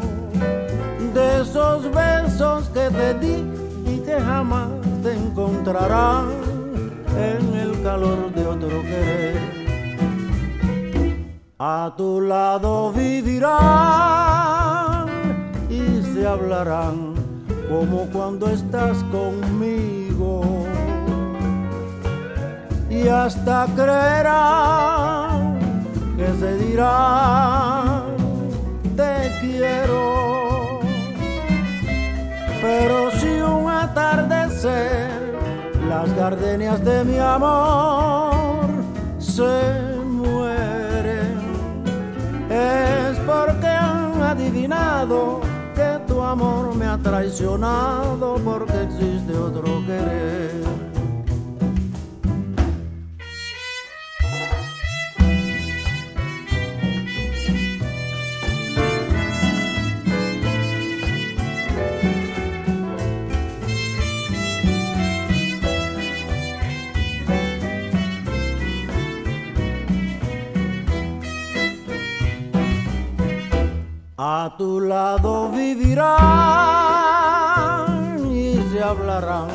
De esos besos que te di y que jamás te encontrarán En el calor de otro querer A tu lado vivirán y se hablarán como cuando estás conmigo Y hasta creerán que se dirán te quiero Pero si un atardecer las gardenias de mi amor se mueren Es porque han adivinado que tu amor me ha traicionado porque existe otro querer. A tu lado vivirán y se hablarán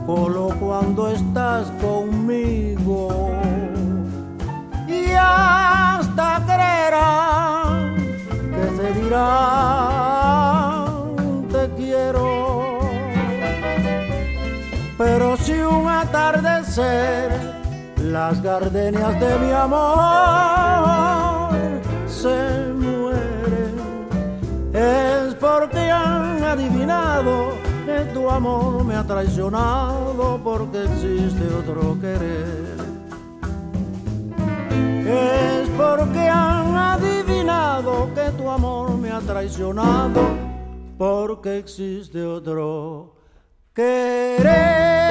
solo cuando estás conmigo y hasta creerán que se dirán te quiero pero si un atardecer. Las gardenias de mi amor se mueren. Es porque han adivinado que tu amor me ha traicionado porque existe otro querer. Es porque han adivinado que tu amor me ha traicionado porque existe otro querer.